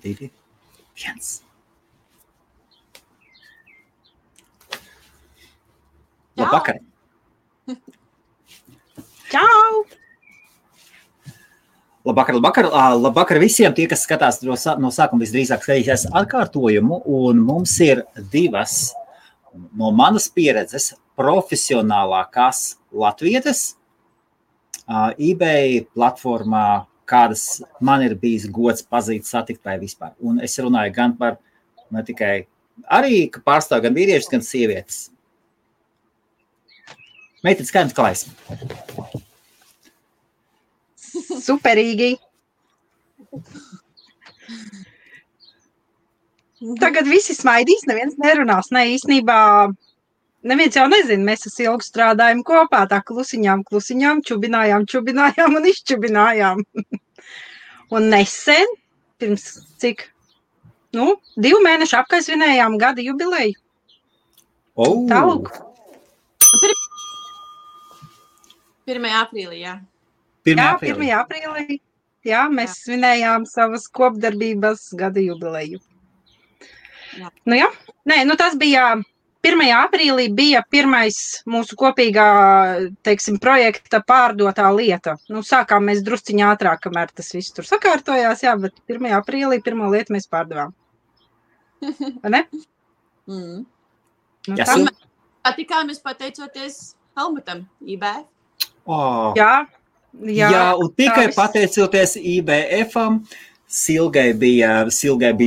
2, 1. Labvakar! Čau! Labvakar visiem tie, kas skatās no sākuma visdrīzāk skatīsies atkārtojumu, un mums ir 2 no manas pieredzes profesionālākās latvietes eBay platformā, kādas man ir bijis gods pazīt, satikt vai vispār. Un es runāju gan par, ne tikai arī, ka pārstāv gan vīriešus, gan sievietes. Meitenes, kā jums klājas? Superīgi. Tagad visi smaidīs, neviens nerunās. Ne, īstenībā neviens jau nezina, mēs ar Silgu strādājam kopā, tā klusiņām, čubinājām un izčubinājām. Un nesen, pirms cik, 2 mēnešu apkaisvinējām gada jubileju. Tālūk. 1. aprīlī, jā. 1. aprīlī. Jā, mēs svinējām savas kopdarbības gada jubileju. Jā. Tas bija 1. aprīlī bija pirmais mūsu kopīgā, projekta pārdotā lieta. Sākām mēs drusciņā ātrāk, kamēr tas viss tur sakārtojās, jā, bet 1. aprīlī pirmo lietu mēs pārdevām. Vai ne? Tikāmies pateicoties Helmutam, eBay. Jā, un tikai pateicoties IBF-am, Silgai bija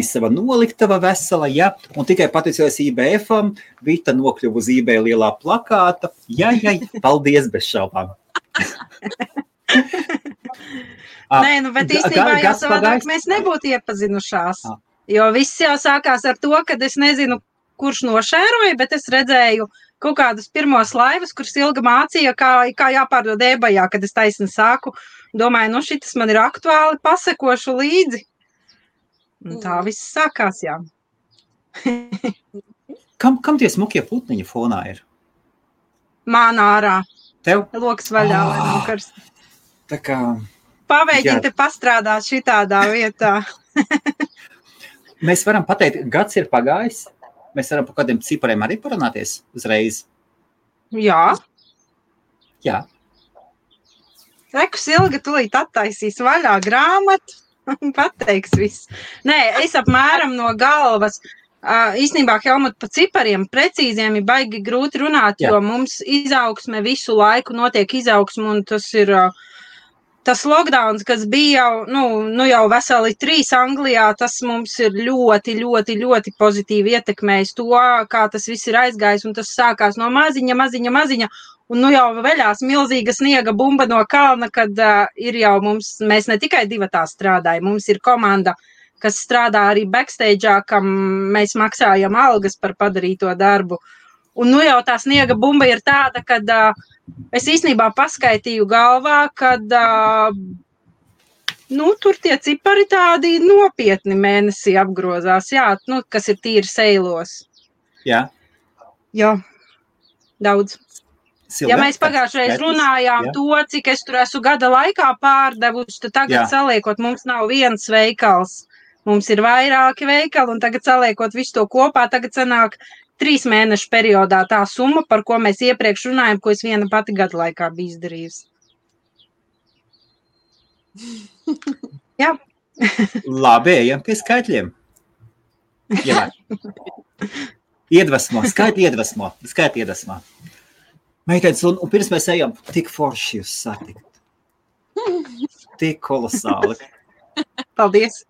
sava noliktava vesela, ja, un tikai pateicoties IBF-am, Vita nokļuva uz eBay lielā plakāta. Jā, paldies bez šaubām. Nē, bet īstenībā jau savādāk mēs nebūtu iepazinušās, jo viss jau sākās ar to, kad es nezinu, kurš nošēroja, bet es redzēju kaut kādus pirmos laivus, kur Silga mācīja, kā jāpārdod eBayā, kad es taisni sāku. Domāju, šitas man ir aktuāli, pasekošu līdzi. Un tā viss sākās, jā. Kam tie smukie putniņi fonā ir? Man ārā. Tev? Loks vaļā, lai nav karsti. Tā kā... Pamēģini te pastrādāt šitādā vietā. Mēs varam pateikt, gads ir pagājis. Mēs varam par kādiem cipariem arī parunāties uzreiz. Jā. Jā. Reku Silga tulīt attaisīs vaļā grāmatu un pateiks viss. Nē, es apmēram no galvas. Īstenībā, Helmut, pa cipariem precīziem ir baigi grūti runāt, jo mums izaugsme visu laiku notiek izaugsme, un tas ir tas lockdowns, kas bija jau veseli 3 Anglijā, tas mums ir ļoti, ļoti, ļoti pozitīvi ietekmējis to, kā tas viss ir aizgājis, un tas sākās no maziņa, un jau veļās milzīga sniega bumba no kalna, kad ir jau mēs ne tikai 2 strādājam, mums ir komanda, kas strādā arī backstage'ā, kam mēs maksājam algas par padarīto darbu. Un jau tā sniega bumba ir tāda, kad es īstenībā paskaitīju galvā, kad tur tie cipari tādi nopietni mēnesī apgrozās, jā, kas ir tīri seilos. Jā. Jā, daudz. Silga, ja mēs pagājušreiz runājām to, cik es tur esmu gada laikā pārdevuši, tad tagad saliekot, mums nav viens veikals. Mums ir vairāki veikali, un tagad saliekot visu to kopā, tagad sanāk 3 mēnešu periodā tā summa, par ko mēs iepriekš runājam, ko es viena pati gada laikā biju izdarījusi. Jā. Labi, ejam pie skaitļiem. Jā. Skaitļi iedvesmo. Meitenes, un pirms mēs ejam, tik forši jūs satikt. Tik kolosāli. Paldies.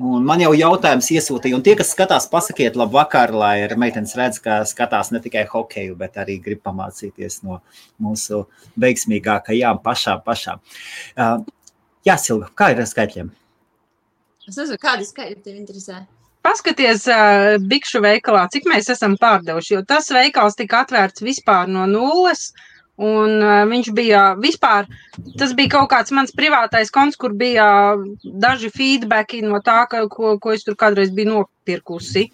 Un man jau jautājums iesūtīja, un tie, kas skatās, pasakiet labvakar, lai meitenes redz, ka skatās ne tikai hokeju, bet arī grib pamācīties no mūsu veiksmīgākajām pašām. Jā, Silga, kā ir ar skaitļiem? Es nezinu, kādi skaitļi tev interesē? Paskaties bikšu veikalā, cik mēs esam pārdevuši, jo tas veikals tika atvērts vispār no nulles, un viņš bija vispār, tas bija kaut kāds mans privātais konts, kur bija daži feedbacki no tā, ko es tur kādreiz biju nopirkusi.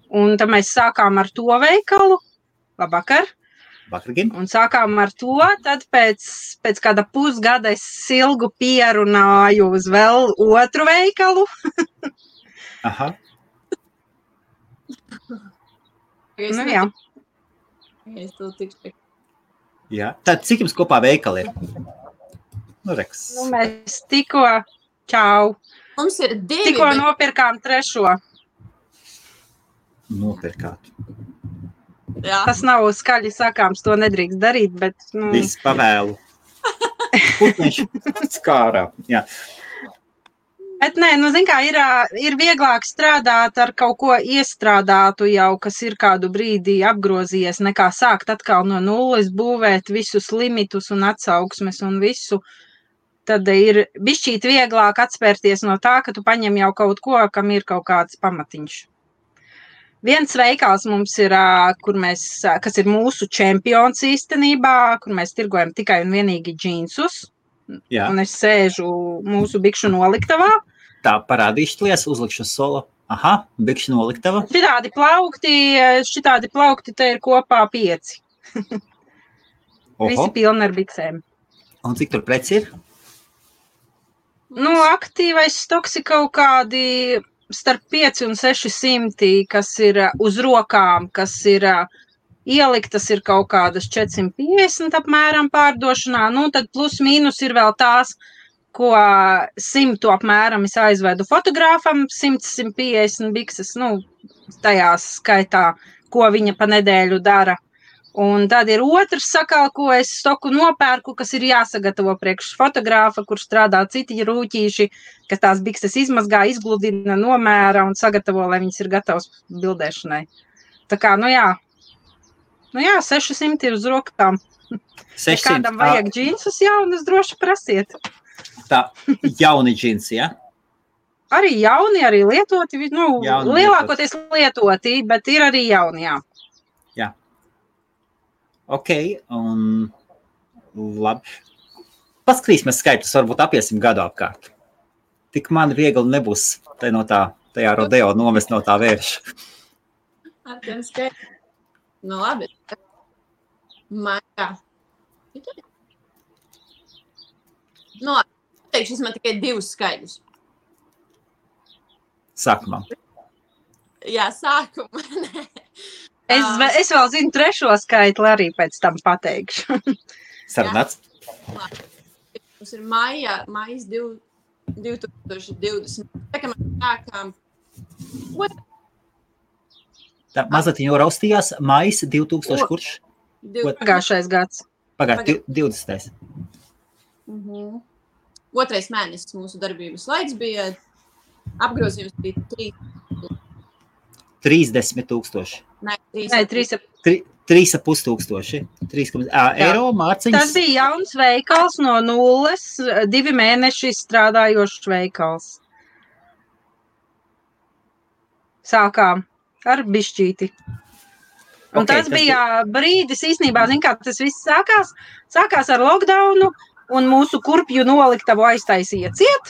Un tad mēs sākām ar to veikalu. Labvakar. Vakargin. Un sākām ar to, tad pēc kāda pusgada es Silgu pierunāju uz vēl otru veikalu. Aha. Nu, jā. Es to tikšu. Jā. Tad cik jums kopā veikali ir? Nu, reks. Nu, mēs tikko, čau, Mums ir divi, tikko bet nopirkām trešo. Nopirkāt. jā. Tas nav skaļi sakāms, to nedrīkst darīt, bet, nu, Viss pavēlu. Putniņš skārā. Jā. bet nē, nu, zin kā, ir vieglāk strādāt ar kaut ko iestrādātu jau, kas ir kādu brīdi apgrozījies, nekā sākt atkal no nulles būvēt visus limitus un atsauksmes un visu. Tad ir bišķīt vieglāk atspērties no tā, ka tu paņem jau kaut ko, kam ir kaut kāds pamatiņš. Viens veikals mums ir, kas ir mūsu čempions īstenībā, kur mēs tirgojam tikai un vienīgi džinsus. Jā. Un es sēžu mūsu bikšu noliktavā. Tā parādīšķlies, uzlikšu solo. Aha, bikšu noliktava. Šitādi plaukti te ir kopā 5. Visi Oho. pilni ar biksēm. Un cik tur preci ir? Nu, aktīvais stoks ir kaut kādi starp 5 un 600, kas ir uz rokām, kas ir ieliktas, ir kaut kādas 450 apmēram pārdošanā. Nu, tad plus mīnus ir vēl tās, ko 100 apmēram es aizvedu fotogrāfam, 100-150 bikses, nu, tajās skaitā, ko viņa pa nedēļu dara. Un tad ir otrs sakal, ko es stoku nopērku, kas ir jāsagatavo priekš fotogrāfa, kur strādā citi rūķīši, kas tās bikses izmazgā, izgludina, nomēra un sagatavo, lai viņas ir gatavas bildēšanai. Tā kā, nu jā, 600 ir uz rokām. Ja 600. kādam vajag džinsus jaunus, droši prasiet. Tā, jauni džinsi, ja? Arī jauni, arī lietoti, nu, Jauni lielākoties lietoti, bet ir arī jauni, jā. Jā. Ok, un labi. Paskatīsimies skaitļus, varbūt apiesim gadu apkārt. Tik man viegli nebūs tajā rodeo nomest no tā vērša. Ar tiem skaitļiem. Nu, labi. Maijā. Nu, labi. Teikšu, es man tikai 2 skaidrus. Sākumā. Jā, sākumā. Nē. Es vēl zinu trešo skaitli, arī pēc tam pateikšu. Sarunāts? Mums ir maijas 2020. Tā kā mēs sākām. Tā mazliet jau raustījās maijs 2000 kurš? Pagājušais gads. Pagājušais 20. Otrais mēnesis mūsu darbības laiks bija apgrozījums bija 30,000. Nē, 3,5 tūkstoši. Eiro mārciņas. Tas bija jauns veikals no nulles, 2 mēneši strādājošs veikals. Sākām ar bišķīti. Un Okay, tas bija brīdis, īstenībā, zin kā, tas viss sākās ar lockdownu, un mūsu kurpju noliktavu aiztaisīja ciet.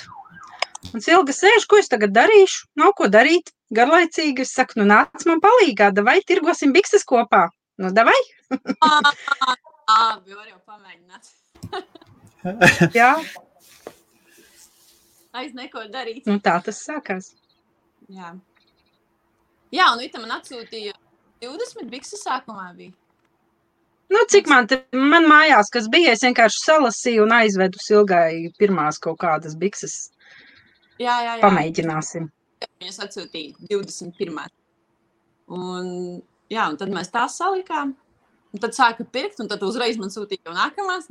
Un Silga sēž, ko es tagad darīšu? Nav ko darīt, garlaicīgi. Es saku, nu nāc man palīgā, davai tirgosim bikses kopā. Nu, davai? Labi, var jau pamēģināt. Jā, Aiz neko darīt. nu tā tas sākās. Jā. Jā, un Vita man atsūtīja 20 bikses sākumā bija. Nu, cik man mājās, kas bija, es vienkārši salasīju un aizvedu Silgai pirmās kaut kādas bikses. Jā. Pamēģināsim. Viņas atsūtīja 21. Un tad mēs tās salikām. Un tad sāka pirkt, un tad uzreiz man sūtīja jau nākamās.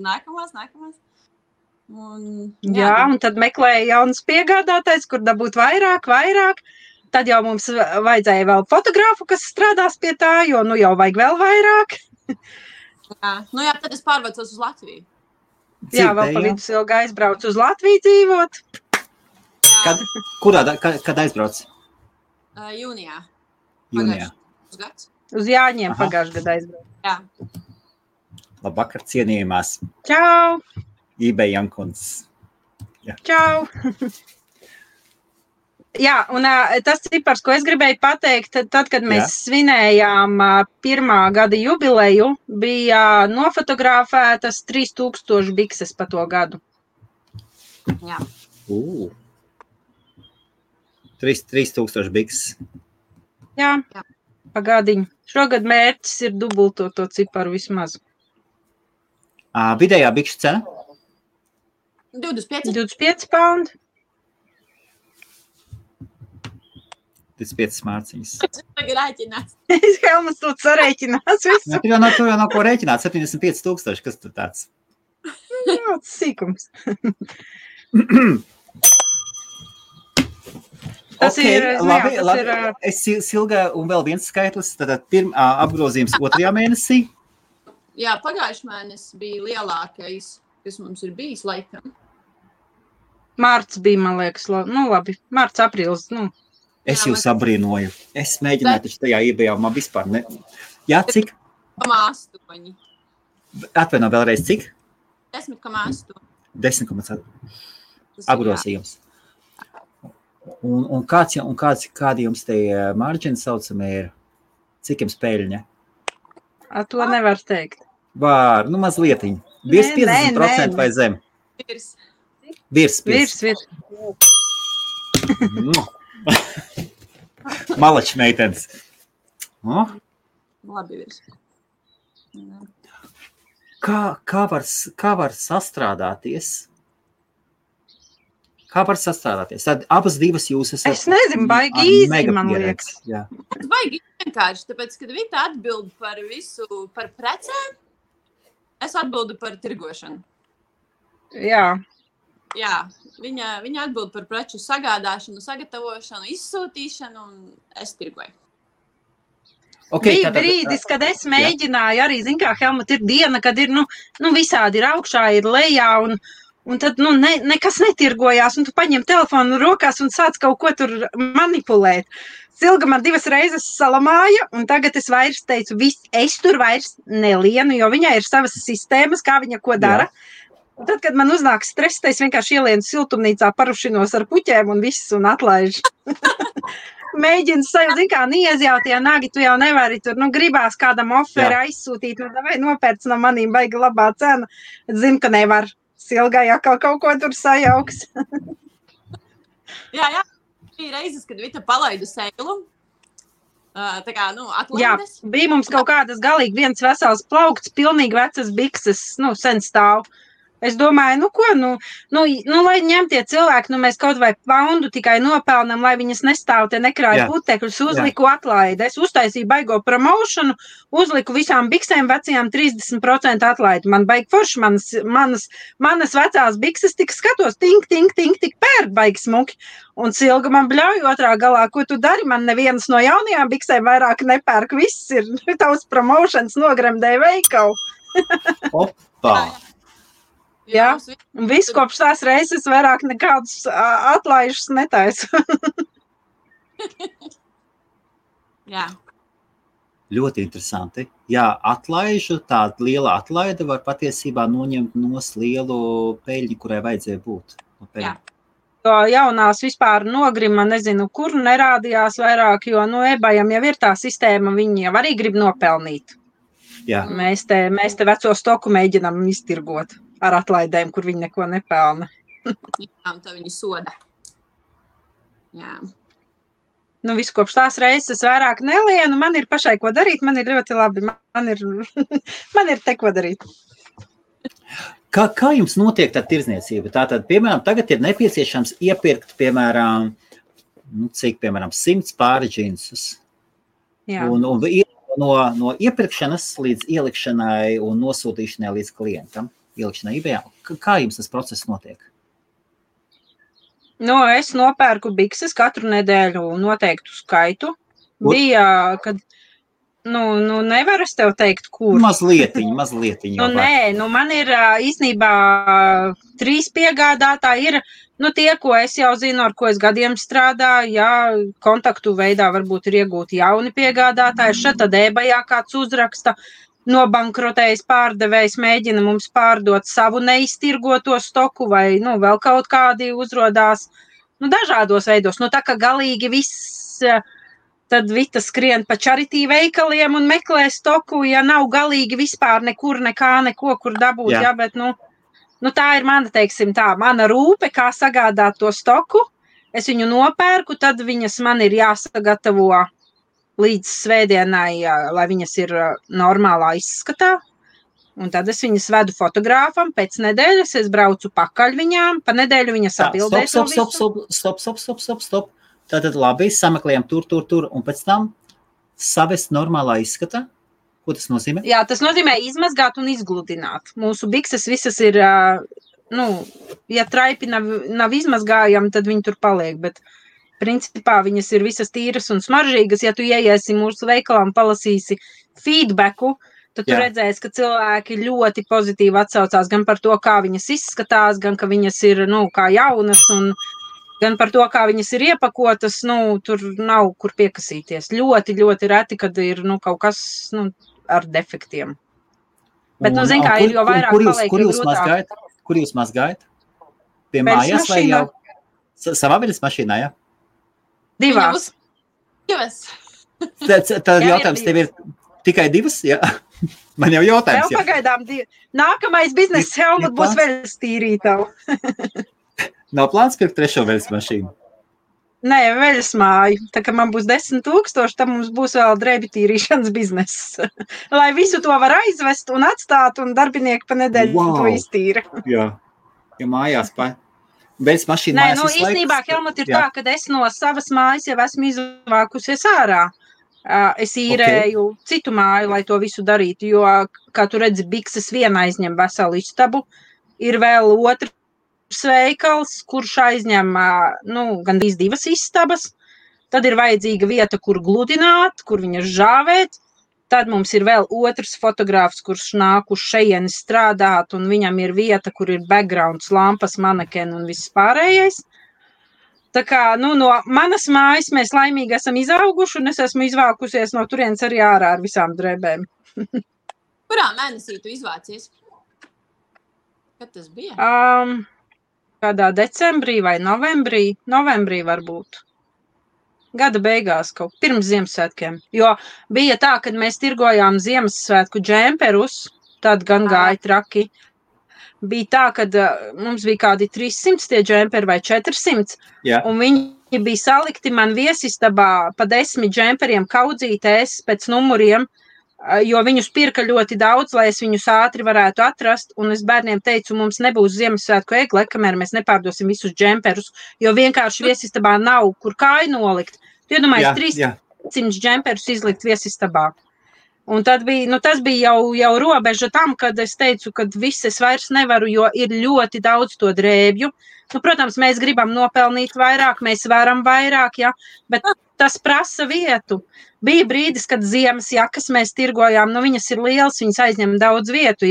Jā, un tad meklēja jaunas piegādātājs, kur dabūt vairāk. Tad jau mums vajadzēja vēl fotogrāfu, kas strādās pie tā, jo nu jau vajag vēl vairāk. Jā, tad es pārvācos uz Latviju. Jā, vēl pa vidu Silga aizbrauc uz Latviju dzīvot. Kad aizbrauc? Jūnijā. Jūnijā. Gads. Uz Jāņiem pagājušajā gadā aizbrauc. Jā. Labvakar, cienījumās. Čau! eBay Jankuns. Čau! Jā, un tas cipars, ko es gribēju pateikt, tad, kad mēs svinējām 1. gada jubileju, bija nofotografētas 3000 bikses pa to gadu. Jā. 3000 bikses. Jā, pagādiņ. Šogad mērķis ir dubultot to ciparu vismaz. Vidējā bikšu cena? 25 paundi. 25 mārciņas. Tagad rēķinās. Helmas to sarēķinās visu. Tur jau nav ko rēķināt, 75,000, kas tur tāds? Jā, tas sīkums. Tas ir, labi. Es Silga un vēl viens skaitlis, tad apgrozījums 2. mēnesī. Jā, pagājuši mēnesis bija lielākais, kas mums ir bijis laikam. Mārts bija, man liekas, labi, mārts, aprīlis, Es jūs abrīnoju. Es mēģināju taču tajā iebijā, man vispār ne... Jā, cik? 10,8. Atvaino vēlreiz, cik? 10,8. 10,8. Apgrozījums. Un kādi jums te marģini saucamie ir? Cik jums peļņa? To nevar teikt. Var, mazlietiņ. Virs 50% vai zem? Virs. Malači meitenes. Labi virs. Kā var sastrādāties? Tad abas divas jūs esat... Es nezinu, baigi īzi, man liekas. Tas baigi vienkārši, tāpēc, kad Vita atbild par visu, par precēm, es atbildu par tirgošanu. Jā. Jā, viņa atbild par preču sagādāšanu, sagatavošanu, izsūtīšanu, un es tirgoju. Bija brīdis, kad es mēģināju arī, kā Helmut, ir diena, kad ir, visādi ir augšā, ir lejā, un tad, nekas netirgojās, un tu paņem telefonu rokās un sāc kaut ko tur manipulēt. Silga man 2 reizes salamāja, un tagad es vairs teicu, es tur vairs nelienu, jo viņai ir savas sistēmas, kā viņa ko dara. Jā. Un tad, kad man uznāk stress, es vienkārši ielienu siltumnīcā, parušinos ar puķēm un viss un atlaižu. Mēģinu sajūt, kā niezjautie nagi, tu jau nevari tur, gribās kādam oferi aizsūtīt, vai nopērc no manīm baigi labā cena. Zinu, ka nevar. Silgai atkal kaut ko tur sajauks. Jā. Bija reizes, kad Vita palaida seilu. Tā kā, atlaides. Jā, bija mums kaut kādas galīgi viens vesels plaukts, pilnīgi vecas bikses, sen stāv. Es domāju, lai ņemtie cilvēki, mēs kaut vai poundu tikai nopelnam, lai viņas nestāv te nekrāja putekļus, uzliku atlaidi. Es uztaisīju baigo promošanu, uzliku visām biksēm vecajām 30% atlaidi. Man baigi forši, manas vecās bikses tik skatos, tink, tik pērk baigi smuki. Un Silga man bļauj otrā galā, ko tu dari? Man nevienas no jaunajām biksēm vairāk nepērk, viss ir tavs promošanas nogremdēja veikalu. Opa! Jā, un viss kopš tās reizes vairāk nekādus atlaižus netaisu. Jā. Ļoti interesanti. Jā, tāda liela atlaide var patiesībā noņemt nos lielu peļņu, kurai vajadzēja būt. Jā. Jo jaunās vispār nogrima, nezinu, kur nerādījās vairāk, jo, ebajam jau ir tā sistēma, viņi jau arī grib nopelnīt. Jā. Mēs te veco stoku mēģinām iztirgot ar atlaidēm, kur viņi neko nepelna. Jā, un tā viņi soda. Jā. Viss kopš tās reizes vairāk nelienu, man ir pašai ko darīt, man ir ļoti labi, man ir te ko darīt. Kā jums notiek tā tirdzniecība? Tātad, piemēram, tagad ir nepieciešams iepirkt, piemēram, 100 pāri džinsus. Jā. Un no iepirkšanas līdz ielikšanai un nosūtīšanai līdz klientam. Kā jums tas process notiek? Es nopērku bikses katru nedēļu noteiktu skaitu. Bija, kad, nevar es tev teikt, kur. Mazlietiņ. Man ir īstenībā 3 piegādātāji ir, tie, ko es jau zinu, ar ko es gadiem strādāju, jā, kontaktu veidā varbūt ir iegūti jauni piegādātāji, šeit tad ebajā kāds uzraksta, nobankrotējis pārdevējs mēģina mums pārdot savu neiztirgoto stoku vai, vēl kaut kādi uzrodās, dažādos veidos. Tā kā galīgi viss, tad Vita skrien pa charity veikaliem un meklē stoku, ja nav galīgi vispār nekur, neko, kur dabūt, jā, bet, tā ir mana, teiksim tā, mana rūpe, kā sagādāt to stoku, es viņu nopērku, tad viņas man ir jāsagatavo līdz svētdienai, lai viņas ir normālā izskatā. Un tad es viņas vedu fotogrāfam, pēc nedēļas es braucu pakaļ viņām, pa nedēļu viņas atbildēs. Stop. Tātad labi, sameklējam tur, un pēc tam savest normālā izskatā. Ko tas nozīmē? Jā, tas nozīmē izmazgāt un izgludināt. Mūsu bikses visas ir, ja traipi nav izmazgājami, tad viņi tur paliek, bet principā viņas ir visas tīras un smaržīgas. Ja tu ieiesi mūsu veikalā un palasīsi feedbacku, tad tu redzēsi, ka cilvēki ļoti pozitīvi atsaucās gan par to, kā viņas izskatās, gan ka viņas ir, kā jaunas, un gan par to, kā viņas ir iepakotas, tur nav kur piekasīties. Ļoti, ļoti reti, kad ir, kaut kas, ar defektiem. Bet, zin kā, ir jo vairāk paliek, jo grūtāk. Kur jūs mazgājat? Pie mājās vai jau? Savā veļas mašīnā, ja? Divās. Tad jautājums tev ir tikai divas, jā? Man jau jautājums. Vēl pagaidām nākamais bizness Helmut būs veļas tīrītavu. Nav plāns pirkt trešo veļas mašīnu? Nē, veļas māju. Tā kā man būs 10,000, tad mums būs vēl drēbi tīrīšanas bizness. Lai visu to var aizvest un atstāt, un darbinieki pa nedēļu to iztīra. Jā, ja mājās veļas mašīna mājās visu laiku. Īstenībā, Helmut, ir tā, ka es no savas mājas jau esmu izvākusies ārā. Es īrēju citu māju, lai to visu darītu, jo, kā tu redzi, bikses viena aizņem veselu istabu, ir vēl otrs veikals, kurš aizņem, gandrīz divas istabas, tad ir vajadzīga vieta, kur gludināt, kur viņas žāvēt, tad mums ir vēl otrs fotogrāfs, kurš nāk uz šejieni strādāt, un viņam ir vieta, kur ir backgrounds, lampas, manekeni un viss pārējais. Tā kā, no manas mājas mēs laimīgi esam izauguši, un es esmu izvākusies no turienes arī ārā ar visām drēbēm. Kurā mēnesī tu izvācies? Kad tas bija? Kādā decembrī vai novembrī? Novembrī varbūt. Gada beigās kaut pirms Ziemassvētkiem. Jo bija tā, kad mēs tirgojām Ziemassvētku džemperus, tad gan gāja traki. Bija tā, kad mums bija kādi 300 tie džemperi vai 400, un viņi bija salikti man viesistabā pa 10 džemperiem kaudzītēs pēc numuriem, jo viņus pirka ļoti daudz, lai es viņus ātri varētu atrast, un es bērniem teicu, mums nebūs Ziemassvētku egle, kamēr mēs nepārdosim visus džemperus, jo vienkārši viesistabā nav, kur kāju nolikt. Tu iedomājies 300 džemperus izlikt viesistabā. Un tad bija, tas bija jau robeža tam, kad es teicu, ka viss es vairs nevaru, jo ir ļoti daudz to drēbju. Protams, mēs gribam nopelnīt vairāk, mēs varam vairāk, bet tas prasa vietu. Bija brīdis, kad ziemas jakas mēs tirgojām, viņas ir lielas, viņas aizņem daudz vietu,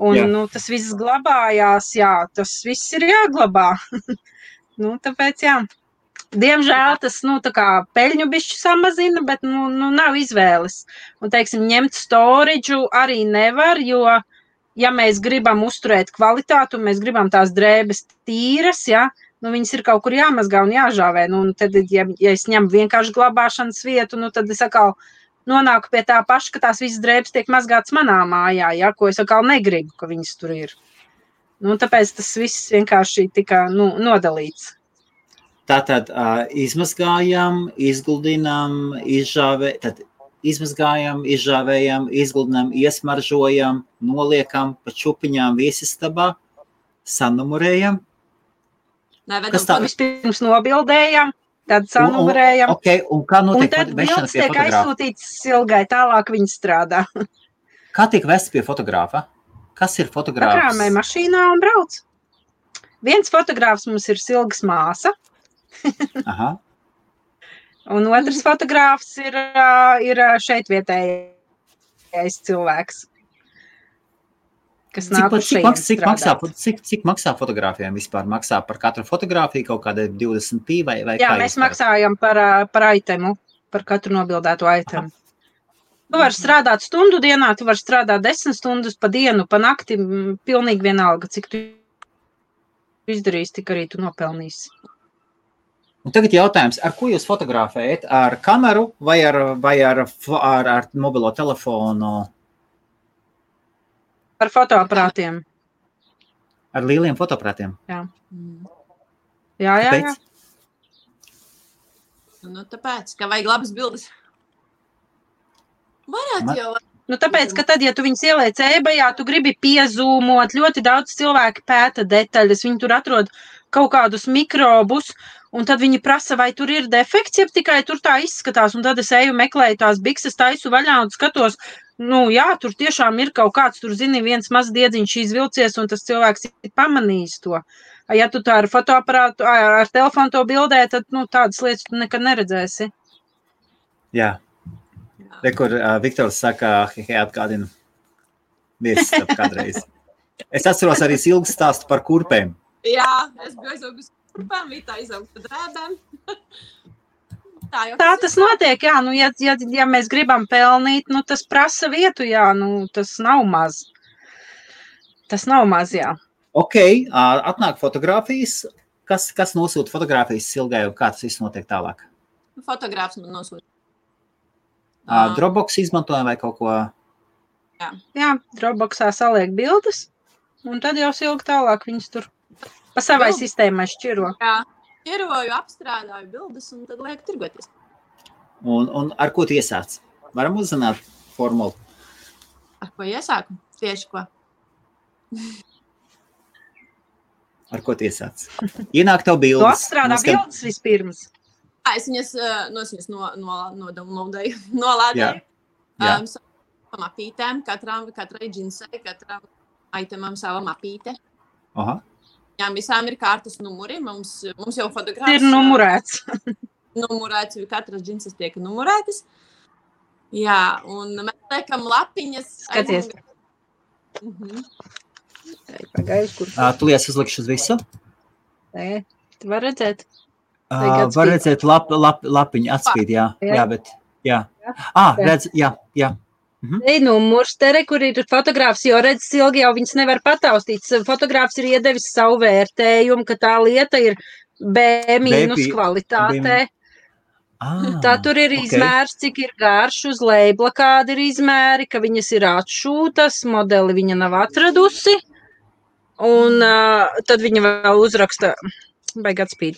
un tas viss glabājās, tas viss ir jāglabā. Tāpēc, Diemžēl tas, tā kā peļņu bišķi samazina, bet, nav izvēles. Un, teiksim, ņemt storidžu arī nevar, jo, ja mēs gribam uzturēt kvalitātu, un mēs gribam tās drēbes tīras, viņas ir kaut kur jāmazgā un jāžāvē. Un tad, ja es ņemu vienkārši glabāšanas vietu, tad es atkal nonāku pie tā paša, ka tās visas drēbes tiek mazgātas manā mājā, ko es atkal negribu, ka viņas tur ir. Tāpēc tas viss vienkārši tika, nodalīts. Tātad izmazgājam, izgludinam, izžāvējam, izgludinam, iesmaržojam, noliekam pa čupiņām viesistabā, sanumurējam. Vispirms nobildējam, tad sanumurējam. Un kā notiek un tad bildes tiek aizsūtīts Silgai, tālāk viņi strādā. Kā tiek vests pie fotogrāfa? Kas ir fotogrāfs? Pakrāmē mašīnā un brauc. Viens fotogrāfs mums ir Silgas māsa. Aha. Un otrs fotogrāfs ir šeit vietējais cilvēks, kas nāk uz šeit strādāt. Cik maksā fotogrāfiem vispār? Maksā par katru fotogrāfiju kaut kāda 20 pī vai Jā, mēs maksājam par itemu, par katru nobildēto itemu. Tu vari strādāt stundu dienā, tu vari strādāt 10 stundas pa dienu, pa nakti, pilnīgi vienalga, cik tu izdarīsi, tik arī tu nopelnīsi. Un tagad jautājums, ar ko jūs fotografējat? Ar kameru vai ar mobilo telefonu? Ar fotoaparātiem. Ar lieliem fotoaparātiem? Jā. Jā. Nu, tāpēc, ka vajag labas bildes. Varētu jau. Nu, tāpēc, ka tad, ja tu viņus ieliec eBayā, tu gribi piezūmot, ļoti daudz cilvēki pēta detaļas, viņi tur atrod kaut kādus mikrobus, un tad viņi prasa, vai tur ir defekts, ja tikai tur tā izskatās, un tad es eju meklēju tās bikses, taisu vaļā un skatos, nu jā, tur tiešām ir kaut kāds, tur zini, viens mazs diedziņš izvilcies, un tas cilvēks ir pamanījis to. Ja tu tā ar fotoaparātu, ar telefonu to bildē, tad, nu, tādas lietas tu nekad neredzēsi. Jā. Kur Viktors saka, atgādina viesis kādreiz. Es atceros arī ilgu stāstu par kurpēm. Jā, es biju aizaugus kurpēm, Vita aizaugus par drēbēm. Tā tas notiek, jā, nu, ja mēs gribam pelnīt, nu, tas prasa vietu, jā, nu, tas nav maz. Tas nav maz, jā. Ok, atnāk fotogrāfijas. Kas nosūta fotogrāfijas Silgai un kā tas viss notiek tālāk? Fotogrāfs man nosūta. Dropbox izmantojam vai kaut ko? Jā, Dropboxā saliek bildes, un tad jau Silga tālāk viņas tur pa savai sistēmai šķiro. Jā, šķiroju, apstrādāju bildes un tad lieku tirgoties. Un ar ko tu iesāc? Varam uzzināt formulu? Ar ko iesāku? Tieši ko? Ar ko tu iesāc? Ienāk tev bildes. Tu apstrādā bildes vispirms. Es viņas nolādēju. Mapītēm, katrai džinsai, katram itemam sava mapīte. Aha. Jā, visām ir kārtas numuri. Mums jau fotogrāfs... Ir numurēts. Numurēts, katras džinsas tiek numurētas. Jā, un mēs liekam lapiņas... Skaties. Pagaidzi, kur... Tu lies uzlikšu uz visu? Nē, tu var redzēt. Var redzēt lapiņu atspīd, jā, bet, jā. Redz, jā. Ei, numurs, te kur ir fotogrāfs, jo redz, Silgi jau viņas nevar pataustīt. Fotogrāfs ir iedevis savu vērtējumu, ka tā lieta ir B- kvalitātē. Tā tur ir izmērs, cik ir garš, uz leibla kādi ir izmēri, ka viņas ir atšūtas, modeli viņa nav atradusi. Un tad viņa vēl uzraksta, baigi atspīd.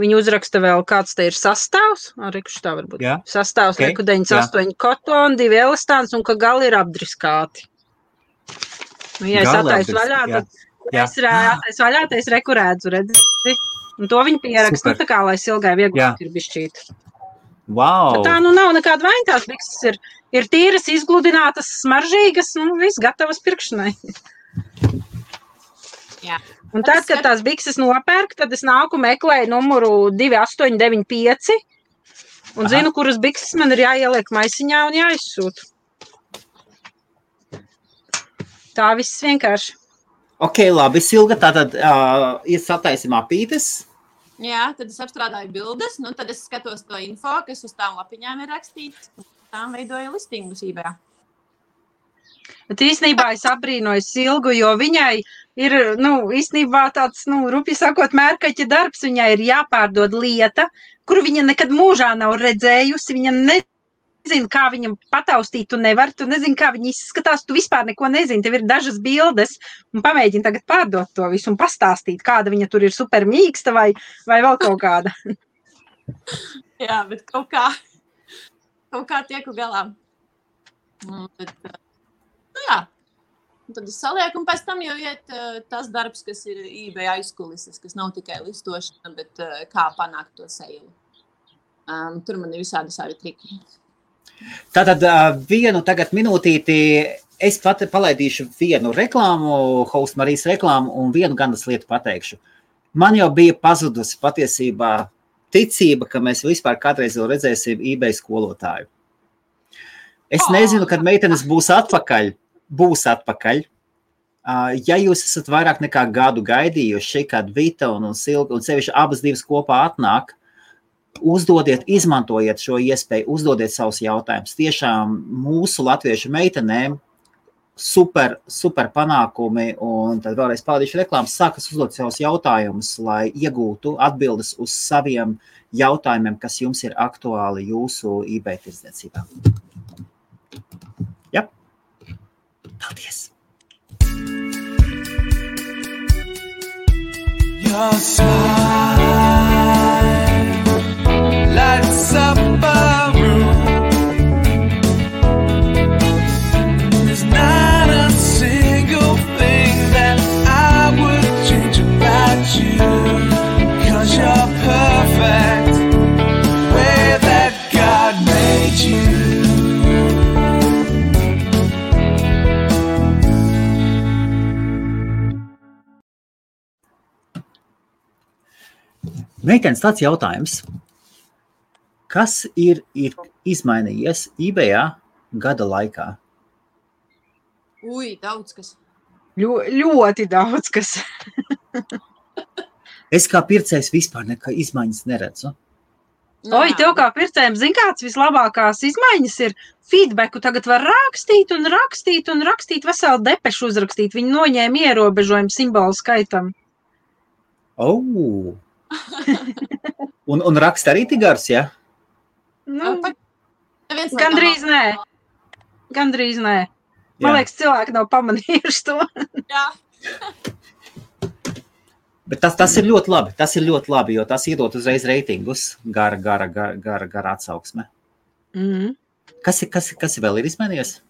Viņa uzraksta vēl, kāds te ir sastāvs, rekuši tā varbūt. Jā. Sastāvs, reku 98 kotoni, 2 elastāns un ka gali ir apdriskāti. Nu, ja es attaisu vaļā, tad es reku redzu, redzi. Un to viņi pieraksta, tā kā, lai Silgai vieglāk ir bišķīt. Wow. Tā nu nav nekāda vaina, tās bikses ir tīras, izgludinātas, smaržīgas, nu viss gatavas pirkšanai. Jā. Un tad, kad tās bikses nopērk, tad es nāku meklēju numuru 2895 un zinu, kuras bikses man ir jāieliek maisiņā un jāizsūta. Tā viss vienkārši. Ok, labi, Silga, tātad sataisim apītes. Jā, tad es apstrādāju bildes, nu tad es skatos to info, kas uz tām lapiņām ir rakstīts, un tām veidoju listingus eBayā. Bet īstenībā es apbrīnoju Silgu, jo viņai ir, īstenībā tāds, rupi sakot, mērkaķa darbs, viņai ir jāpārdod lieta, kuru viņa nekad mūžā nav redzējusi, viņa nezina, kā viņam pataustīt, tu nezini, kā viņa izskatās, tu vispār neko nezini, tev ir dažas bildes, un pamēģini tagad pārdot to visu un pastāstīt, kāda viņa tur ir super mīksta vai vēl kaut kāda. Jā, bet kaut kā tieku galā. Jā, un tad es salieku, un pēc tam jau iet tas darbs, kas ir eBay aizkulises, kas nav tikai listošana, bet kā panākt to seilu. Tur man ir visādi savi triki. Tātad vienu tagad minūtīti, es pat palaidīšu vienu reklāmu, Host Marijas reklāmu, un vienu gandas lietu pateikšu. Man jau bija pazudusi patiesībā ticība, ka mēs vispār kādreiz jau redzēsim eBay skolotāju. Es nezinu, kad meitenes būs atpakaļ. Ja jūs esat vairāk nekā gadu gaidījuši, kad Vita un Silga un sevišķi abas divas kopā atnāk, uzdodiet, izmantojiet šo iespēju, uzdodiet savus jautājumus. Tiešām mūsu latviešu meitenēm super panākumi, un tad vēlreiz palaidīšu reklāmas, sākas uzdot savus jautājumus, lai iegūtu atbildes uz saviem jautājumiem, kas jums ir aktuāli jūsu eBay tirdzniecībā. Jā. Paldies! Your smile, light supper room. There's not a single thing that I would change about you, 'cause you're perfect the way that God made you. Meitenes, tāds jautājums. Kas ir izmainījies eBayā gada laikā? Daudz kas. Ļoti daudz kas. Es kā pircējs vispār nekā izmaiņas neredzu. Oi, tev kā pircējiem, zin kāds vislabākās izmaiņas ir? Feedbacku tagad var rakstīt un rakstīt un rakstīt, veselu depešu uzrakstīt. Viņi noņēma ierobežojumu simbolu skaitam. Oh. Un raksta arī tik gars, ja? Nu, gandrīz nē. Gandrīz nē. Man liekas, cilvēki nav pamanījuši to. Jā. Bet tas ir ļoti labi. Tas ir ļoti labi, jo tas iedot uzreiz reitingus. Gara atsauksme. Mhm. Kas vēl ir izmainījies?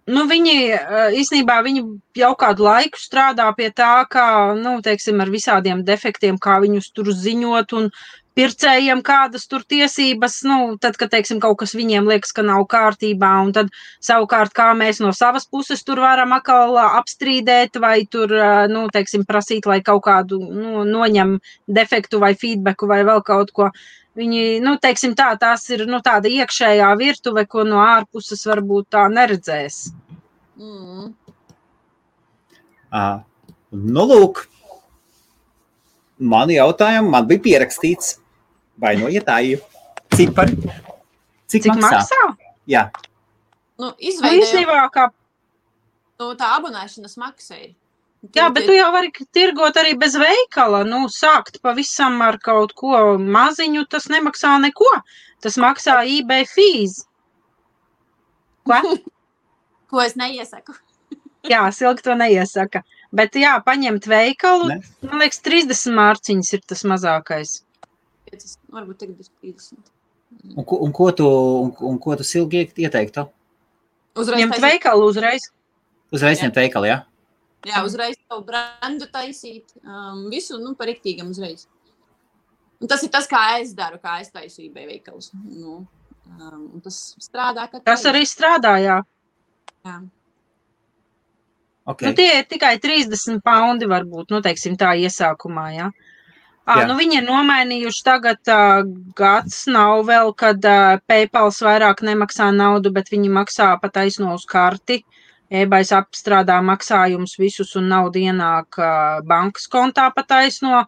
Nu, īstenībā viņi jau kādu laiku strādā pie tā, kā, teiksim, ar visādiem defektiem, kā viņus tur ziņot un pircējiem kādas tur tiesības, tad, kad, teiksim, kaut kas viņiem liekas, ka nav kārtībā, un tad savukārt, kā mēs no savas puses tur varam atkal apstrīdēt vai tur, teiksim, prasīt, lai kaut kādu noņem defektu vai feedbacku vai vēl kaut ko. Viņi, teiksim tā, tās ir tāda iekšējā virtuve, ko no ārpuses varbūt tā neredzēs. Lūk, mani jautājumi man bija pierakstīts. Vainojiet, cipari. Cik maksā? Jā. Īstenībā, kā... Tā abonēšanas maksa ir. Jā, bet tu jau vari tirgot arī bez veikala, sākt pavisam ar kaut ko maziņu, tas nemaksā neko. Tas maksā eBay fees. Ko? Ko es neiesaku. Jā, Silga to neiesaka. Bet jā, paņemt veikalu, man liekas, 30 mārciņas ir tas mazākais. Varbūt tagad 30. Un ko tu Silgi ieteiktu? Ņemt veikalu uzreiz. Uzreiz ņemt veikalu, jā? Jā, uzreiz savu brandu taisīt, visu, par riktīgam uzreiz. Un tas ir tas, kā es daru, kā es taisu eBay veikalus. Un tas strādā, ka... Tas arī strādā, jā. Jā. Okay. Tie ir tikai 30 paundi varbūt, teiksim tā iesākumā, jā. Viņi ir nomainījuši tagad gads nav vēl, kad PayPals vairāk nemaksā naudu, bet viņi maksā pa taisno uz karti. eBay apstrādā maksājumus visus un naudu ienāk bankas kontā pa taisno.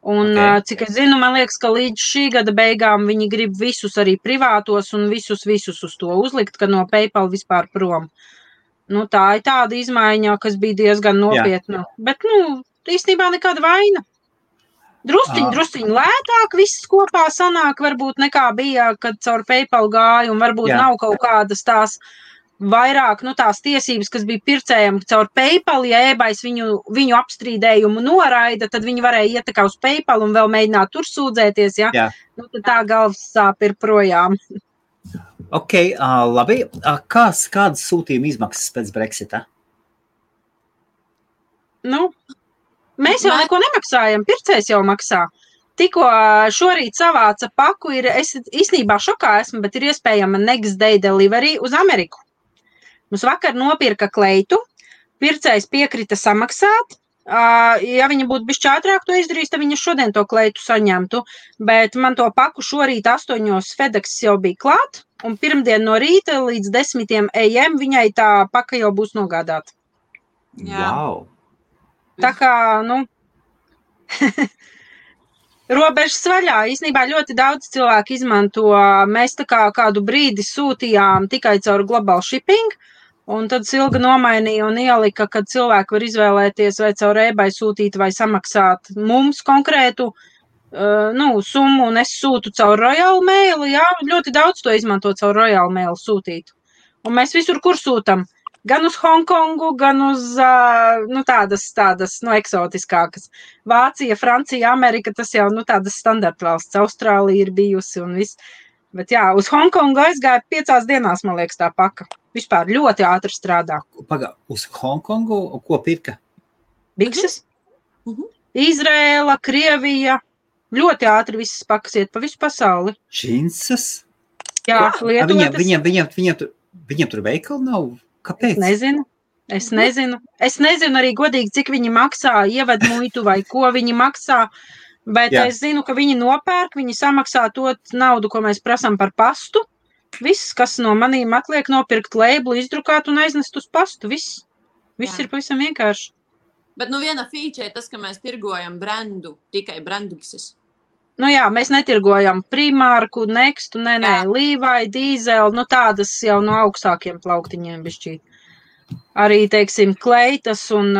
Un, cik es zinu, man liekas, ka līdz šī gada beigām viņi grib visus arī privātos un visus uz to uzlikt, ka no PayPal vispār prom. Tā ir tāda izmaiņa, kas bija diezgan nopietna. Bet, īstenībā nekāda vaina. Drusciņ lētāk viss kopā sanāk, varbūt nekā bija, kad caur PayPal gāja, un varbūt nav kaut kādas tās vairāk, tās tiesības, kas bija pircējiem caur PayPal, ja eBays viņu apstrīdējumu noraida, tad viņi varēja iet uz PayPal un vēl mēģināt tur sūdzēties, ja? Tad tā galvas sāp ir projām. Ok, labi. Kādas sūtījuma izmaksas pēc Brexita? Mēs jau neko nemaksājam, pircējs jau maksā. Tikko šorīt savāca paku, es īstenībā šokā esmu, bet ir iespējama next day delivery uz Ameriku. Mums vakar nopirka kleitu, pircējs piekrita samaksāt. Ja viņa būtu bišķi ātrāk to izdarījis, tad viņa šodien to kleitu saņemtu, bet man to paku šorīt 8 FedEx jau bija klāt, un pirmdien no rīta līdz 10 AM viņai tā paka jau būs nogādāta. Wow! Tā kā, robežas vaļā. Īstenībā ļoti daudz cilvēku izmanto. Mēs tā kā kādu brīdi sūtījām tikai caur global shipping, un tad Silga nomainīja un ielika, kad cilvēki var izvēlēties vai caur eBay sūtīt vai samaksāt mums konkrētu summu, un es sūtu caur Royal Mail. Jā, ļoti daudz to izmanto caur Royal Mail sūtīt. Un mēs visur, kur sūtam. gan uz Hongkongu, gan uz tādas eksotiskākas. Vācija, Francija, Amerika, tas jau tādas standarta valsts. Austrālija ir bijusi un viss. Bet jā, uz Hongkongu aizgāja 5 dienās, man liekas, tā paka. Vispār ļoti ātri strādā. Uz Hongkongu, ko pirka? Bikses, Izrēla, Krievija. Ļoti ātri visas pakas iet pa visu pasauli. Džinsas? Jā, lietotas. Viņiem tur veikali nav? Kāpēc? Es nezinu arī godīgi, cik viņi maksā, ieved muitu vai ko viņi maksā, bet es zinu, ka viņi nopērk, viņi samaksā to naudu, ko mēs prasām par pastu. Viss, kas no manīm atliek, nopirkt labelu, izdrukāt un aiznest uz pastu. Viss ir pavisam vienkārši. Bet viena feature ir tas, ka mēs tirgojam brendu, tikai brenduksis. Mēs netirgojam Primārku, Nextu, Levi, Dīzeli, tādas jau no augstākiem plauktiņiem bišķīt. Arī, teiksim, kleitas un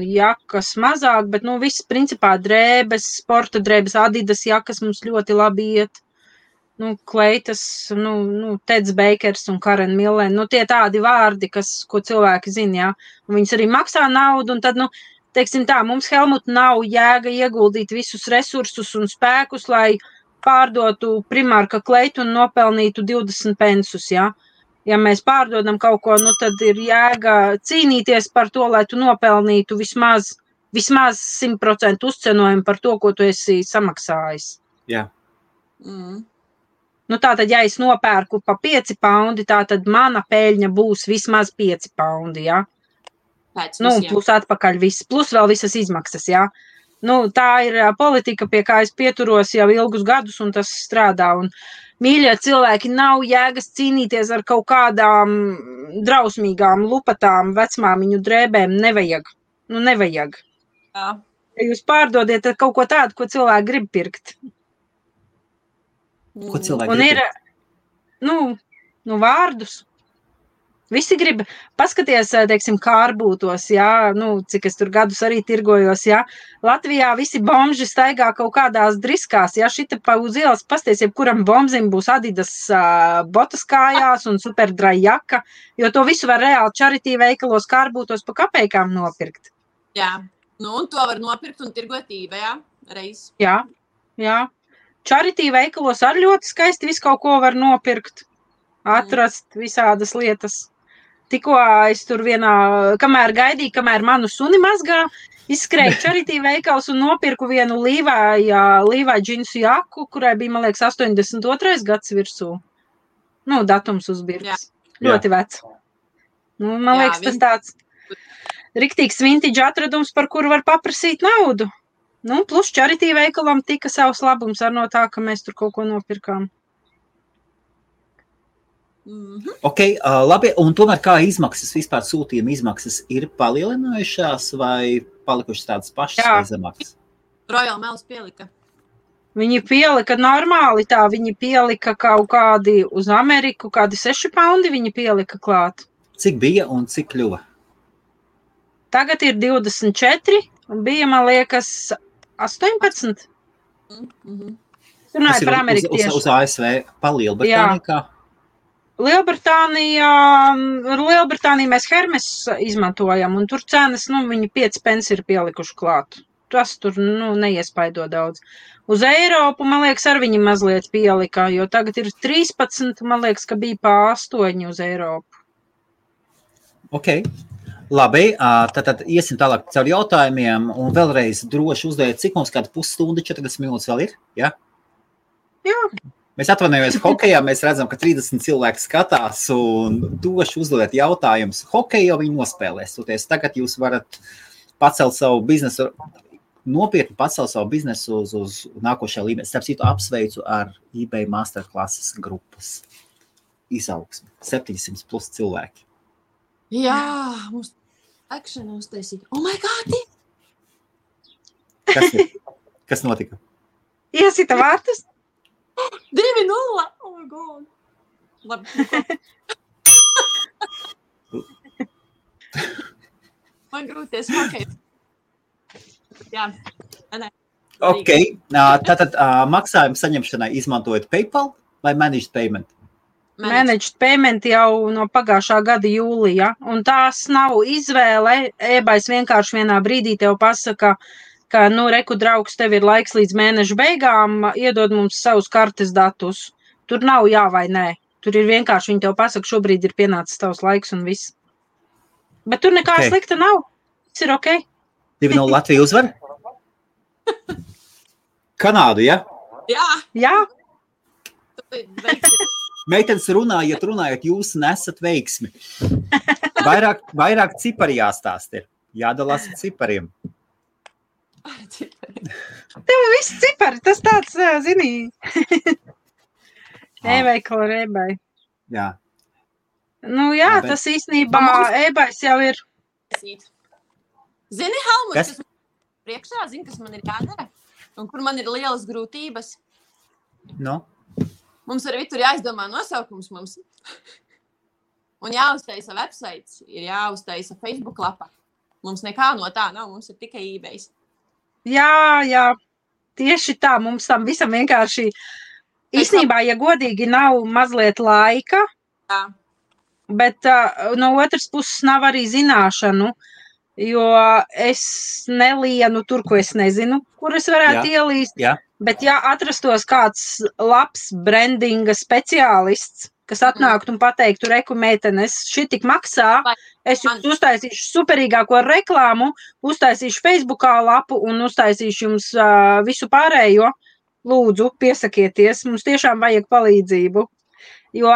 jakas mazāk, bet, viss principā drēbes, sporta drēbes, Adidas jakas mums ļoti labi iet. Kleitas, Teds Bakers un Karen Millen, tie tādi vārdi, ko cilvēki zina, jā. Un viņas arī maksā naudu, un tad, teiksim tā, mums Helmut nav jēga ieguldīt visus resursus un spēkus, lai pārdotu Primārka kleitu un nopelnītu 20 pensus, jā. Ja mēs pārdodam kaut ko, tad ir jēga cīnīties par to, lai tu nopelnītu vismaz 100% uzcenojumu par to, ko tu esi samaksājis. Jā. Tātad, ja es nopērku pa 5 paundi, tātad mana peļņa būs vismaz 5 paundi, jā. Plus atpakaļ viss, plus vēl visas izmaksas, jā. Tā ir politika, pie kā es pieturos jau ilgus gadus, un tas strādā. Un, mīļie cilvēki, nav jēgas cīnīties ar kaut kādām drausmīgām, lupatām, vecmāmiņu drēbēm. Nevajag. Nevajag. Jā. Ja jūs pārdodiet kaut ko tādu, ko cilvēki grib pirkt. Ko cilvēki grib pirkt? Vārdus. Visi grib, paskaties, teiksim, kārbūtos, jā, cik es tur gadus arī tirgojos, jā. Latvijā visi bomži staigā kaut kādās driskās, jā, šita pa uz ielas pasties, jebkuram bomzim būs Adidas botas kājās un superdrai jaka, jo to visu var reāli charity veikalos kārbūtos pa kapeikām nopirkt. Jā, un to var nopirkt un tirgot eBayā reiz. Jā. Charity veikalos ar ļoti skaisti visu kaut ko var nopirkt, atrast visādas lietas. Tikko es tur kamēr manu suni mazgā, izskrēju charity veikals un nopirku vienu Levi džinsu jaku, kurai bija, man liekas, 82. gads virsū. Datums uzbirks. Ļoti vecs. Man liekas, tas tāds riktīgs vintage atradums, par kuru var paprasīt naudu. Plus charity veikalam tika savs labums ar no tā, ka mēs tur kaut ko nopirkām. Ok, labi, un tomēr kā izmaksas, vispār sūtījuma izmaksas ir palielinājušās vai palikušas tādas pašas vai zemākas? Royal Mails pielika. Viņi pielika normāli tā, viņi pielika kaut kādi uz Ameriku, kādi 6 paundi viņi pielika klāt. Cik bija un cik kļuva? Tagad ir 24 un bija, man liekas, 18. Runāju par Ameriku tieši. Uz ASV pa Lielbritāniju kā? Lielbritāniju mēs Hermes izmantojam, un tur cenas, viņi 5 pence ir pielikuši klāt. Tas tur, neiespaido daudz. Uz Eiropu, man liekas, ar viņi mazliet pielika, jo tagad ir 13, man liekas, ka bija pa 8 uz Eiropu. Ok, labi, tad iesim tālāk caur jautājumiem, un vēlreiz droši uzdeviet, cik mums kāda pusstunda, 40 minūtes vēl ir, ja? Jā. Mēs atvainojamies hokejā, mēs redzam, ka 30 cilvēki skatās un doši uzdodiet jautājumus. Hokeju jau viņi nospēlēs. Tagad jūs varat pacelt savu biznesu, nopietni pacelt savu biznesu uz nākošajā līmenī. Starp citu, apsveicu ar eBay Masterclasses grupas izaugsmi. 700 plus cilvēki. Jā, mums akšana uztaisīja. Oh my God! Kas notika? Iesita vārtus? 2-0! Oh my God! Labi. Man grūties hokeju. Jā. Ok. Tātad maksājumu saņemšanai izmantojot PayPal vai Managed Payment? Managed payment jau no pagājušā gada jūlija, un tās nav izvēle. eBay's vienkārši vienā brīdī tev pasaka, ka, reku draugs, tev ir laiks līdz mēneša beigām, iedod mums savus kartes datus. Tur nav jā vai nē. Tur ir vienkārši, viņi tev pasaka, šobrīd ir pienācis tavs laiks un viss. Bet tur nekā slikta nav. Viss ir ok. 2-0 Latvija uzvar? Kanādu, ja? Jā. Meitenes runājot, jūs nesat veiksmi. Vairāk cipari jāstāst ir. Jādalās ar cipariem. Tev viss cipari, tas tāds, zini, e-veikala ar eBay. Jā. Tas īstenībā eBay's jau ir. Zini, Helmut, kas man priekšā, zini, kas man ir jādara? Un kur man ir lielas grūtības? Mums arī tur jāizdomā nosaukums mums. Un jāuztaisa websites, ir jāuztaisa Facebook lapa. Mums nekā no tā nav, mums ir tikai eBay's. Jā, tieši tā, mums tam visam vienkārši, īstenībā, ja godīgi, nav mazliet laika, bet no otras puses nav arī zināšanu, jo es nelienu tur, ko es nezinu, kur es varētu ielīst. Bet ja atrastos kāds labs brandinga speciālists, kas atnāktu un pateiktu, reku meitenes, šī tik maksā, es jums uztaisīšu superīgāko reklāmu, uztaisīšu Facebookā lapu un uztaisīšu jums visu pārējo, lūdzu, piesakieties, mums tiešām vajag palīdzību. Jo,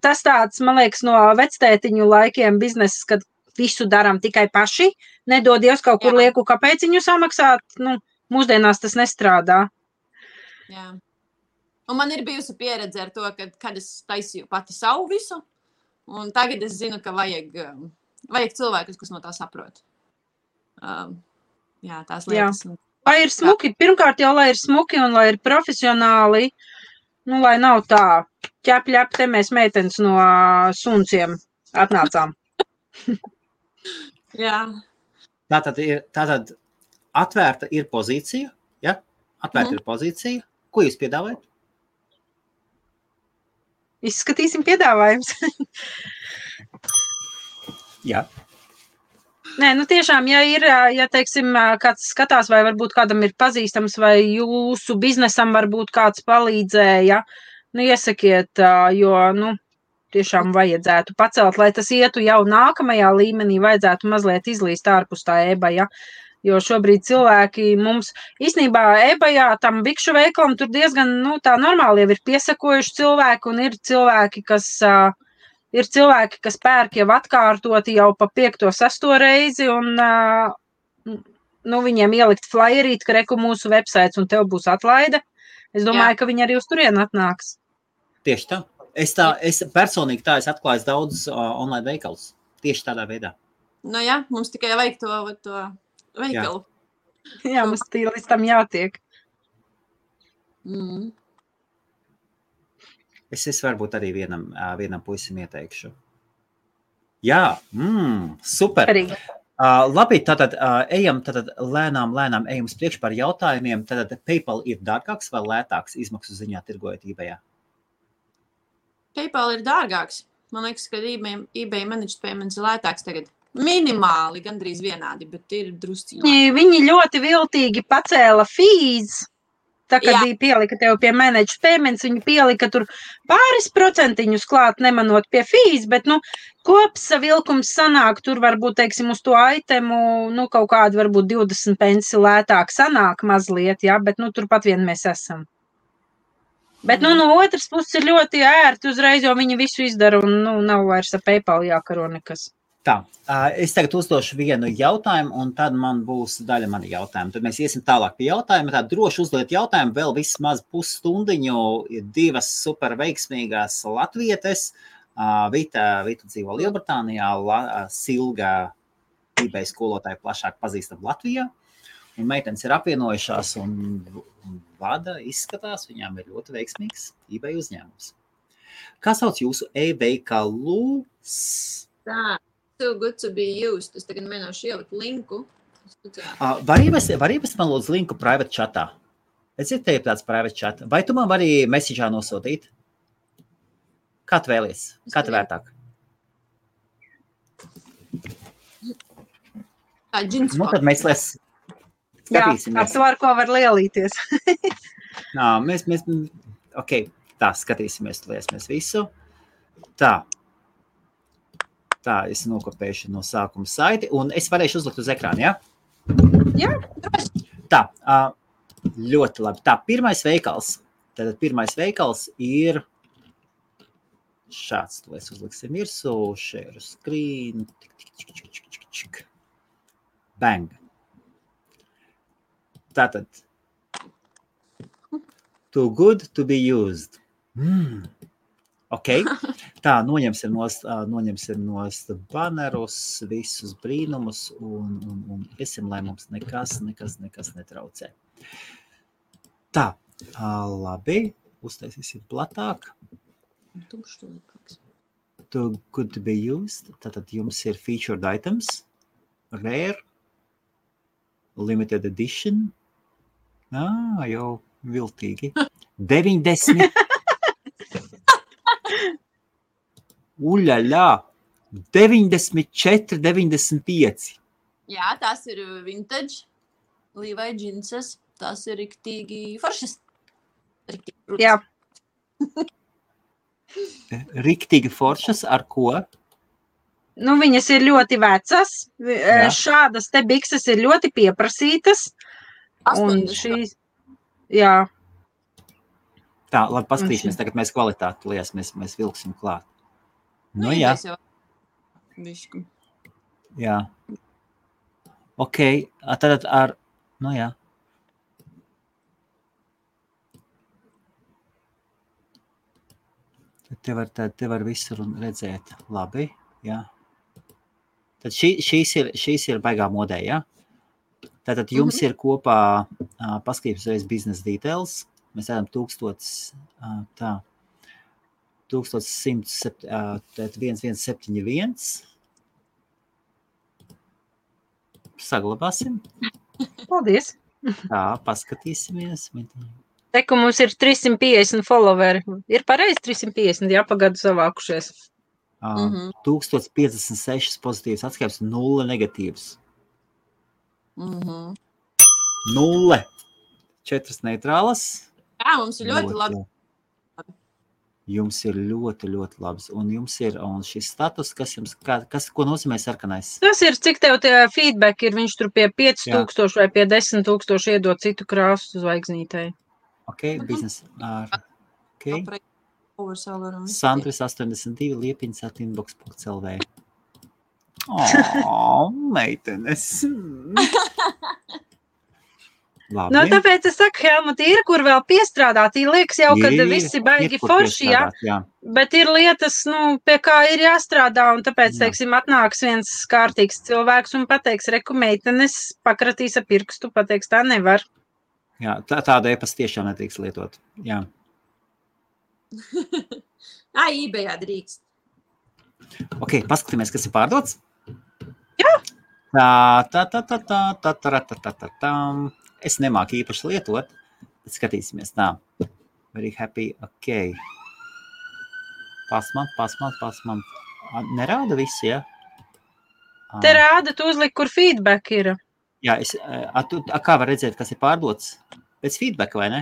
tas tāds, man liekas, no vectētiņu laikiem bizneses, kad visu daram tikai paši, nedod Dievs kaut kur lieku, kāpēc viņu samaksāt, mūsdienās tas nestrādā. Jā. Un man ir bijusi pieredze ar to, kad es taisīju pati savu visu, un tagad es zinu, ka vajag cilvēkus, kas no tā saprot. Tās lietas. Jā. Lai ir smuki, pirmkārt jau, lai ir smuki un lai ir profesionāli, lai nav tā ķep, te mēs meitenes no sunciem atnācām. Jā. Tātad atvērta ir pozīcija, ja? Atvērta ir pozīcija. Ko jūs piedāvājat? Izskatīsim piedāvājums. Jā. Nē, tiešām, ja teiksim, kāds skatās, vai varbūt kādam ir pazīstams, vai jūsu biznesam varbūt kāds palīdzēja, iesakiet, jo, tiešām vajadzētu pacelt, lai tas ietu jau nākamajā līmenī, vajadzētu mazliet izlīst ārpus tā eBay, jo šobrīd cilvēki mums, īstenībā eBayā tam bikšu veikalam tur diezgan, tā normāli jau ir piesakojuši cilvēki, un ir cilvēki, kas pērk jau atkārtoti jau pa 5. 6. reizi, un viņiem ielikt flyerīt, ka reku mūsu websites, un tev būs atlaide. Es domāju, ka viņi arī uz turienu atnāks. Tieši tā. Es personīgi es atklāju daudz online veikalus. Tieši tādā veidā. Mums tikai vajag to veikalu. Jā, mums līdz tam jātiek. Es varbūt arī vienam puisim ieteikšu. Jā, super. Labi, tātad ejam lēnām ejam uz priekšu par jautājumiem. Tātad PayPal ir dārgāks vai lētāks izmaksu ziņā tirgojot eBayā? PayPal ir dārgāks. Man liekas, ka eBay managed payments ir lētāks tagad. Minimāli, gandrīz vienādi, bet ir drusciņi. Viņi ļoti viltīgi pacēla fees. Tā, kad viņi pielika tev pie managed payments, viņi pielika tur pāris procentiņus klāt, nemanot pie fees, bet, kopsavilkums sanāk, tur varbūt, teiksim, uz to itemu, kaut kādu varbūt 20 pensi lētāk sanāk mazliet, bet, turpat vien mēs esam. Bet, no otras puses ir ļoti ērti uzreiz, jo viņi visu izdara un, nav vairs ar PayPal jākaro nekas. Tā, es tagad uzdošu vienu jautājumu, un tad man būs daļa mani jautājumu. Tad mēs iesim tālāk pie jautājuma. Tā droši uzdot jautājumu, vēl vismaz pusstundiņu, ir 2 super veiksmīgās latvietes. Vita dzīvo Lielbritānijā, Silga eBay skolotāja plašāk pazīstam Latvijā. Un meitenes ir apvienojušās un vada, izskatās, viņām ir ļoti veiksmīgs eBay uzņēmums. Kā sauc jūsu e-veikalu? Tā. So good to be used. Es tagad mēģināšu ielikt linku. Var ievest man lūdzu linku private chatā? Es ir tev tāds private chat. Vai tu man vari message'ā nosūtīt? Kā tu vēlies? Kā tu vērtāk? Džins Nu, tad mēs skatīsimies. Jā, ar ko var lielīties. Mēs, ok, tā, skatīsimies, liesimies visu. Tā, es nokopēšu no sākuma saiti, un es varēšu uzlikt uz ekrānu, ja? Jā. Tā, ļoti labi. Tā, pirmais veikals. Tātad pirmais veikals ir šāds, to es uzliksim virsū, share screen, bang. Tātad, too good to be used. Ok, tā, noņemsim nost banerus, visus brīnumus un iesim, lai mums nekas netraucē. Tā, labi, uztaisīsim platāk. Too good to be used. Tātad jums ir featured items, rare, limited edition. Jau viltīgi. 90. Uļaļā. 94, 95. Jā, tās ir vintage, Levi džinsas, tās ir riktīgi foršas. Jā. Riktīgi foršas ar ko? Nu, viņas ir ļoti vecas. Šādas te bikses ir ļoti pieprasītas. Un šīs, jā. Tā, labi, paskatīsimies, tagad mēs kvalitāti lies, mēs vilksim klāt. Nu, jā. Jā. Ok, tad ar, nu jā. Te var visur redzēt. Labi, jā. Tad šīs ir baigā modē, jā? Tātad jums ir kopā, paskatīsimies reiz business details. Mēs redzam 1171. Saglabāsim. Paldies. Tā, paskatīsimies. Te, ka mums ir 350 followeri. Ir pareizi 350, jā, pagadu savākušies. 1056 pozitīvas atskaipes, 0 negatīvas. 0. 4 neitrālas. Jā, mums ir ļoti labi. Jums ir ļoti labs. Un jums ir šis status, ko nozīmē sarkanais? Tas ir, cik tev tie feedback ir, viņš tur pie 5000 vai pie 10,000 iedod citu krāsu zvaigznītei. Ok, biznes ar... Ok. Sandris 82, liepiņas @inbox.lv. Meitenes. Labi. Nu, tāpēc es saku, Helmut, ir, kur vēl piestrādāt. Liekas jau, kad visi baigi forši, jā. Bet ir lietas, pie kā ir jāstrādā, un tāpēc, teiksim, atnāks viens kārtīgs cilvēks un pateiks, reku meitenes, pakratīs ar pirkstu, pateiks, tā nevar. Jā, tādu e-pastu tiešām nedrīkst lietot, jā. eBayā drīkst. Ok, paskatīmies, kas ir pārdots. Jā. Es nemāku īpaši lietot, bet skatīsimies tā. Very happy, ok. Pasmant. Nerāda visi, ja? Te rāda, tu uzlik, kur feedback ir. Jā, kā var redzēt, kas ir pārdots? Pēc feedbacka, vai ne?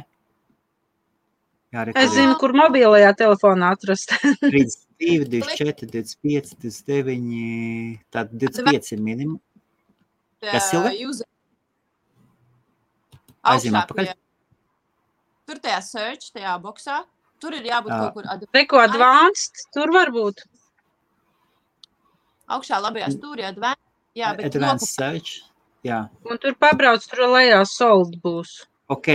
Jā, es zinu, kur mobilajā telefonā atrast. 32, 24, 25, 29, tad 25 ir minimum. Kas, Silga? Aizījumā pakaļ. Tur tajā search, tajā boksā, tur ir jābūt kaut kur... Reko advanced, tur var būt. Augšā labajā stūrī advanced. Jā, bet advanced search, jā. Un tur pabrauc, tur lejā sold būs. Ok,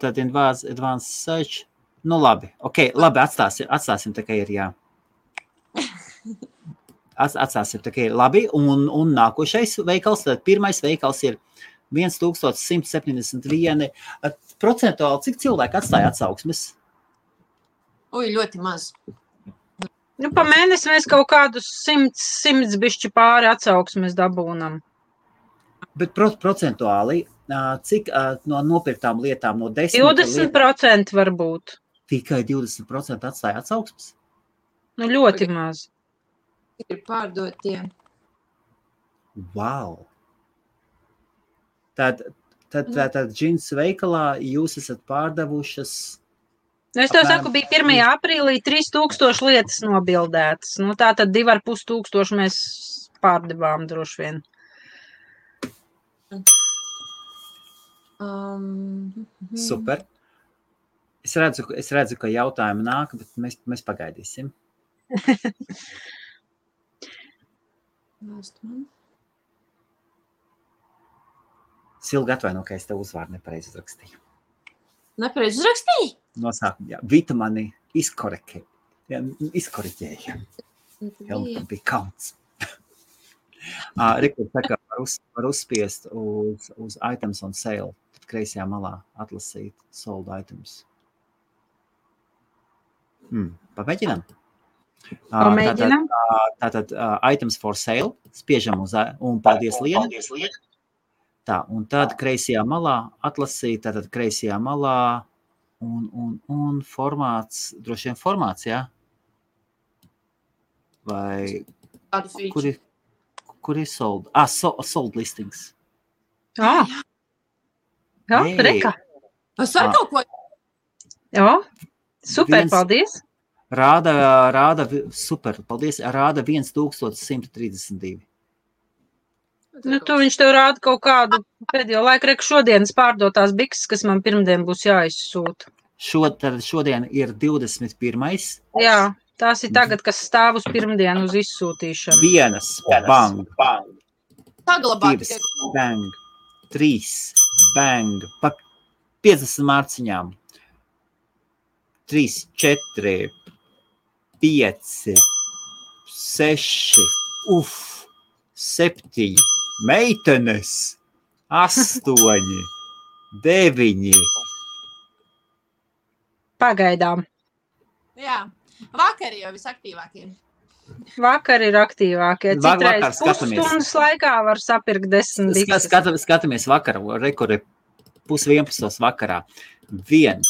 tad advanced search. Nu labi, ok, labi, atstāsim tā, ka ir, jā. Atstāsim tā, ka ir labi, un nākošais veikals, tad pirmais veikals ir 1171. Procentuāli, cik cilvēki atstāja atsauksmes? Ļoti maz. Nu, pa mēnesi mēs kaut kādus 100 bišķi pāri atsauksmes dabūnam. Bet procentuāli, cik no nopirktām lietām no 10... 20% varbūt. Tikai 20% atstāja atsauksmes? Nu, ļoti maz. Ir pārdotie. Wow! Tad džins veikalā jūs esat pārdevušas... Nu, es tev saku, bija 1. aprīlī 3000 lietas nobildētas. Nu, tā tad 2500 mēs pārdevām droši vien. Super. Es redzu, ka jautājumi nāk, bet mēs pagaidīsim. Silga atvaino, ka es tev uzvārdu nepareizi uzrakstīju. Nepareizi uzrakstīji? Nosākumā, jā. Vita mani izkoriģēja. Helmutam bija kauns. Rikārds saka, var uzspiest uz items on sale. Tad kreisajā malā atlasīt sold items. Pamēģinām? Pamēģinām. Tātad items for sale. Spiežam uz un paldies Liena. Tā, un tad kreisajā malā atlasīt, tātad kreisajā malā un formāts, droši vien formāts, jā? Vai kur ir sold? Sold listings. Jā, reka. Es ar kaut ko... Jā, super, paldies. Rāda, super, paldies, rāda 1132. Nu, tu viņš tev rāda kaut kādu pēdējo laiku, reku šodienas pārdotās bikses, kas man pirmdien būs jāizsūta. Šodien ir 21. Jā, tās ir tagad, kas stāv uz pirmdienu uz izsūtīšanu. Vienas, bang, Saglabāt. 2, bang, 3, bang, pa 50 mārciņām. 3, 4, 5, 6, 7, meitenes, 8, 9. Pagaidām. Jā, vakar jau visaktīvākie. Vakar ir aktīvākie. Citreiz pusstundas laikā var sapirkt 10 bikses. Skatāmies vakarā, rekorde 10:30 vakarā. 1,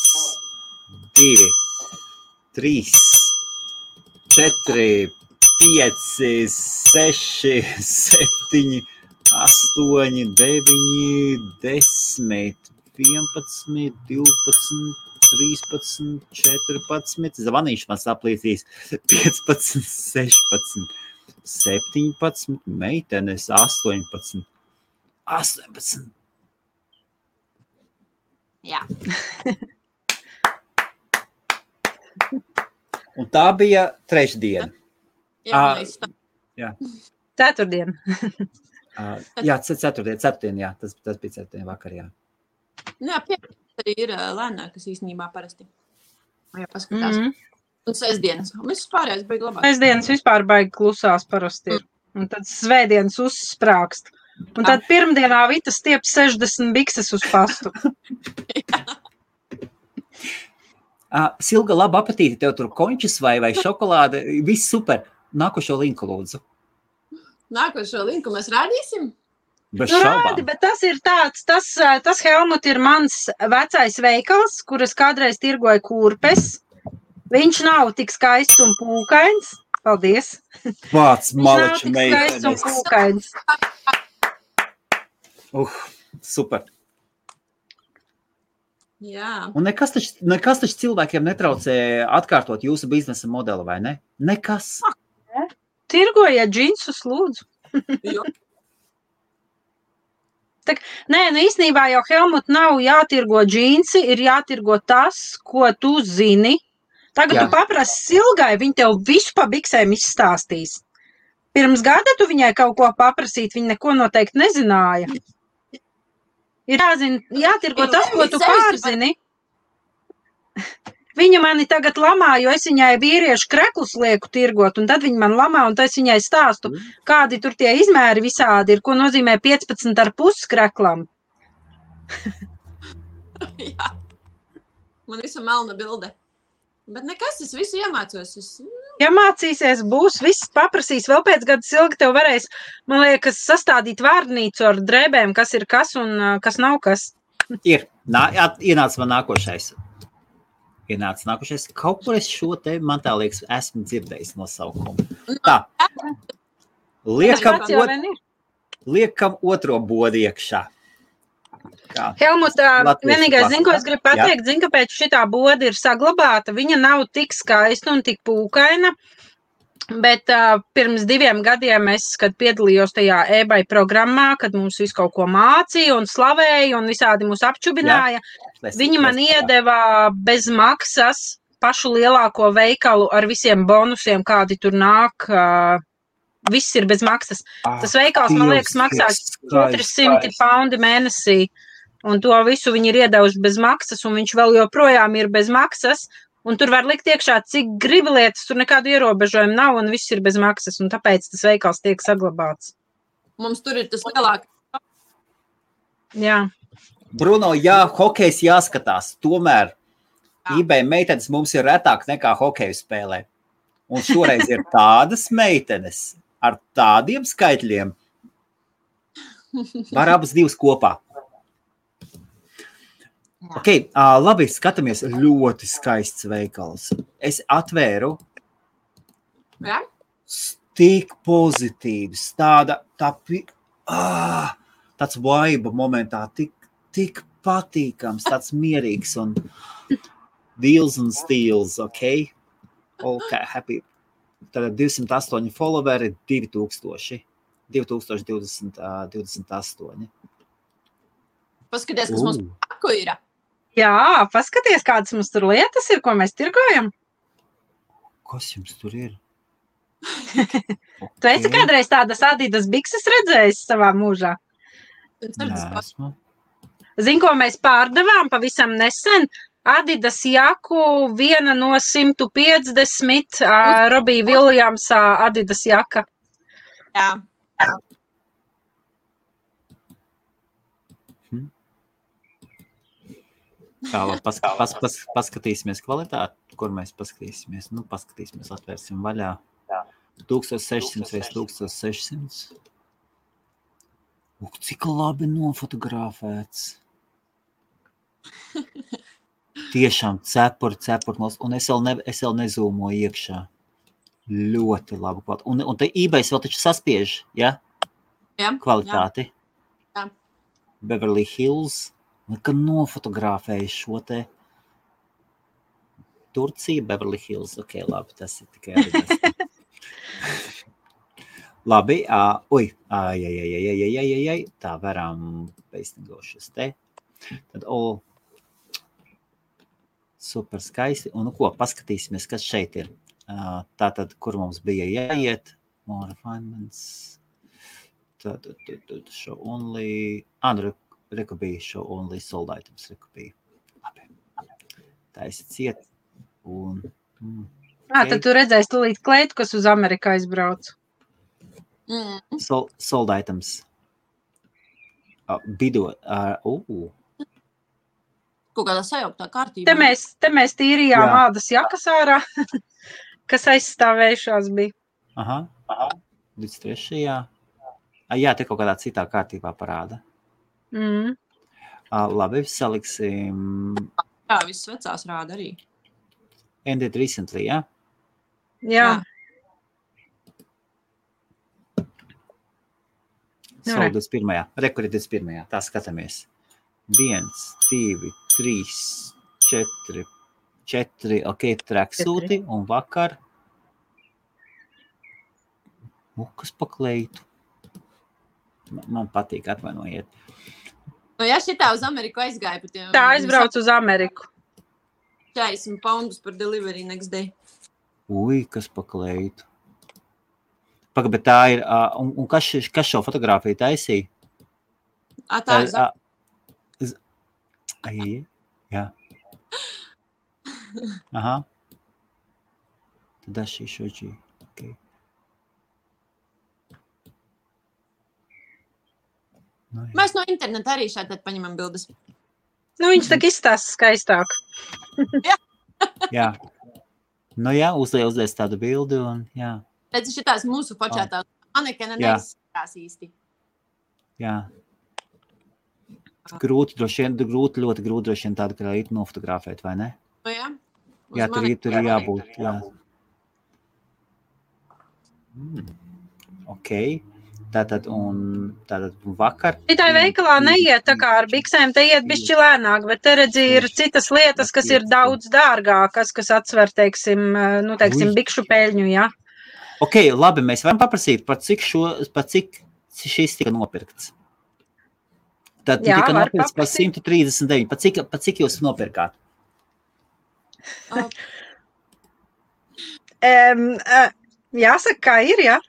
2, 3, 4, 5, 6, 7, 8, 9, 10, 11, 12, 13, 14, zvanīšu man saplīsīs, 15, 16, 17, meitenes, 18. Jā. Un tā bija trešdiena. Jā, Ceturtdien. Jā, ceturtdien, jā, tas bija ceturtdien vakar, jā. Jā, piecdienas arī ir lēnākas īstenībā parasti. Jā, paskatās. Un sestdienas. Viss pārējais baigi labāk. Sestdienas vispār baigi klusās parasti ir. Un tad svētdienas uzsprākst. Un tad pirmdienā Vita stiep 60 bikses uz pastu. Silga, labu apetīti, tev tur končus vai šokolāde, viss super. Nākošo linku lūdzu. Nākošo linku mēs rādīsim? Bez šaubām. Rādi, bet tas ir tāds, tas Helmut ir mans vecais veikals, kuras kādreiz tirgoja kurpes. Viņš nav tik skaists un pūkains. Paldies. Vāc, malaču Viņš nav tik skaists un pūkains. Super. Jā. Un nekas taču cilvēkiem netraucē atkārtot jūsu biznesa modeli, vai ne? Nekas. Tirgojiet džinsus, lūdzu. Nē, nu īstenībā jau Helmut nav jātirgo džinsi, ir jātirgo tas, ko tu zini. Tagad tu paprasi Silgai, viņa tev visu pa biksēm izstāstīs. Pirms gada tu viņai kaut ko paprasīt, viņa neko noteikti nezināja. Ir jātirgo tas, ko tu pārzini. Viņa mani tagad lamā, jo es viņai vīriešu kreklus lieku tirgot, un tad viņa man lamā, un tad es viņai stāstu, kādi tur tie izmēri visādi ir, ko nozīmē 15,5 kreklam. Jā. Man visa melna bilde. Bet nekas, es visu iemācos. Ja mācīsies, būs, viss paprasīs. Vēl pēc gada Silga tev varēs, man liekas, sastādīt vārnīcu ar drēbēm, kas ir kas un kas nav kas. Ir. Ienāc man nākošais. ienāca nākušies. Kaut kur es šo te, man tā liekas, esmu dzirdējis nosaukumu. Tā. Liekam otro bodu iekšā. Helmut, vienīgais, zinu, ko es gribu pateikt, zinu, kāpēc šitā boda ir saglabāta. Viņa nav tik skaista un tik pūkaina, bet pirms 2 gadiem es, kad piedalījos tajā eBay programmā, kad mums visu kaut ko mācīja un slavēja un visādi mūs apčubināja, viņi man iedeva bez maksas pašu lielāko veikalu ar visiem bonusiem, kādi tur nāk. Viss ir bez maksas. Tas veikals, man liekas, maksās 400 paundi mēnesī. Un to visu viņi ir iedevuši bez maksas, un viņš vēl joprojām ir bez maksas. Un tur var likt iekšā, cik gribi lietas, tur nekādu ierobežojumu nav, un viss ir bez maksas. Un tāpēc tas veikals tiek saglabāts. Mums tur ir tas lielākais. Jā. Bruno, jā, hokejs jāskatās. Tomēr eBay meitenes mums ir retāk nekā hokeju spēlē. Un šoreiz ir tādas meitenes ar tādiem skaitļiem. Var abas divas kopā. Ok, labi, skatāmies. Ļoti skaists veikals. Es atvēru. Jā? Tik pozitīvs. Tāds vibe momentā. Tik patīkams, tāds mierīgs un deals un steals, ok? Ok, happy. Tad 208 followeri, 2028. Paskaties, kas mums paku ir. Jā, paskaties, kādas mums tur lietas ir, ko mēs tirgojam. Kas jums tur ir? Tu esi kādreiz tādas Adidas bikses redzējis savā mūžā? Nesmu. Zini, ko mēs pārdevām pavisam nesen? Adidas jaku, viena no 150, Robija Viljamsā Adidas jaka. Jā. Paskatīsimies kvalitāti, kur mēs paskatīsimies. Nu, paskatīsimies, atvērsim vaļā. 1600 vai 1600. Cik labi nofotografēts. Tiešām cepuri, un es vēl nezūmoju iekšā. Ļoti labi kvalitāti. Un te eBay vēl taču saspiež, ja? Jā. Kvalitāti. Jā. Beverly Hills. Kad nofotografēju šo te Turcija, Beverly Hills. Ok, labi, tas ir tikai arī. Labi, tā varam peistingošas te. Tad, super skaisti. Un nu ko, paskatīsimies, kas šeit ir. Tātad, kur mums bija jāiet. More refinements. Tātad, show only. Rekubīja show only sold items. Rekubīja. Labi. Tā esi ciet. Un... Tad tu redzēsi tūlīt kleitu, kas uz Ameriku aizbrauc. Sold items. Bido. Kaut kādā sajauktā kārtībā. Te mēs tīrījām ādas jakas ārā, kas aizstāvējušās bija. Aha. 23. Jā, te kaut kādā citā kārtībā parāda. Labi, saliksim... Jā, viss vecās rāda arī. Ended recently, jā? Jā. Sold 21. Rekuri 21. Tā skatāmies. 1, 2, 3, 4, ok, traksūti un vakar. Kas pakleitu? Man patīk, atvainojiet. Nu, ja šitā uz Ameriku aizgāja pat... Tā aizbrauc uz Ameriku. 40 poundus par delivery next day. Ui, kas pakleitu. Bet tā ir... Un kas šo fotogrāfiju taisīja? Tā ir Jā. Aha. Tad šī šoģī. Okay. No, mēs no interneta arī šādi paņemam bildes. Nu, viņš tak izstāsta skaistāk. Jā. Nu jā, uzlies tādu bildi un jā. Redzi, šitās mūsu počētās manekena neizskatās īsti. Jā. Ļoti grūti droši vien tādu krāītu nofotografēt, vai ne? O jā. Jā, tur ir jābūt, jā. Ok. Tātad vakar... Šitai veikalā neiet tā kā ar biksēm, te iet bišķi lēnāk, bet te redzi ir citas lietas, kas ir daudz dārgākas, kas atsver, teiksim, bikšu peļņu, jā. Ok, labi, mēs varam paprasīt, par cik šis tika nopirkts. Tad Jā, tika var nopirkts par 139. Par cik jūs nopirkāt? Jāsaka, kā ir, jā?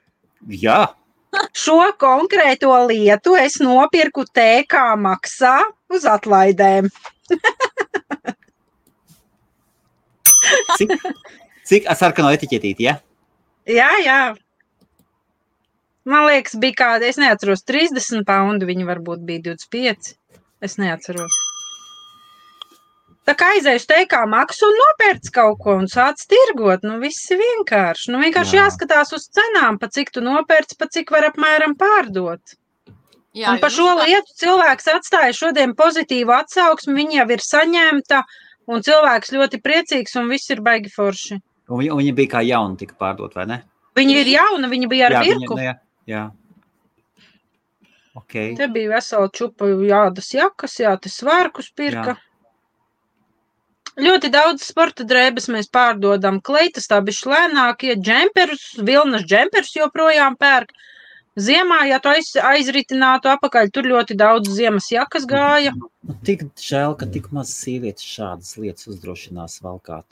Jā. Šo konkrēto lietu es nopirku TK maksā uz atlaidēm. Cik sarkano etiķetīti, ja? Jā. Man liekas, bija kāda, es neatceros, 30 poundu, viņi varbūt bija 25. Es neatceros. Tā kā aizējuši TK maksu un nopērts kaut ko un sāc tirgot, viss ir vienkārši. Vienkārši jāskatās uz cenām, pa cik tu nopērts, pa cik var apmēram pārdot. Jā, un par šo lietu cilvēks atstāja šodien pozitīvu atsauksmi, viņa jau ir saņemta, un cilvēks ļoti priecīgs, un viss ir baigi forši. Un viņa bija kā jauna tika pārdot, vai ne? Viņa ir jauna, viņa bija ar virku. Jā. Okay. Te bija vesela čupa jādas jakas, te svārkus pirka. Jā. Ļoti daudz sporta drēbes mēs pārdodam. Kleitas tā bišķi lēnākie, džemperus, vilnas džemperus joprojām pērk. Ziemā, ja tu aizritinātu apakaļ, tur ļoti daudz ziemas jakas gāja. Tik žēl, ka tik maz sievietes šādas lietas uzdrošinās valkāt.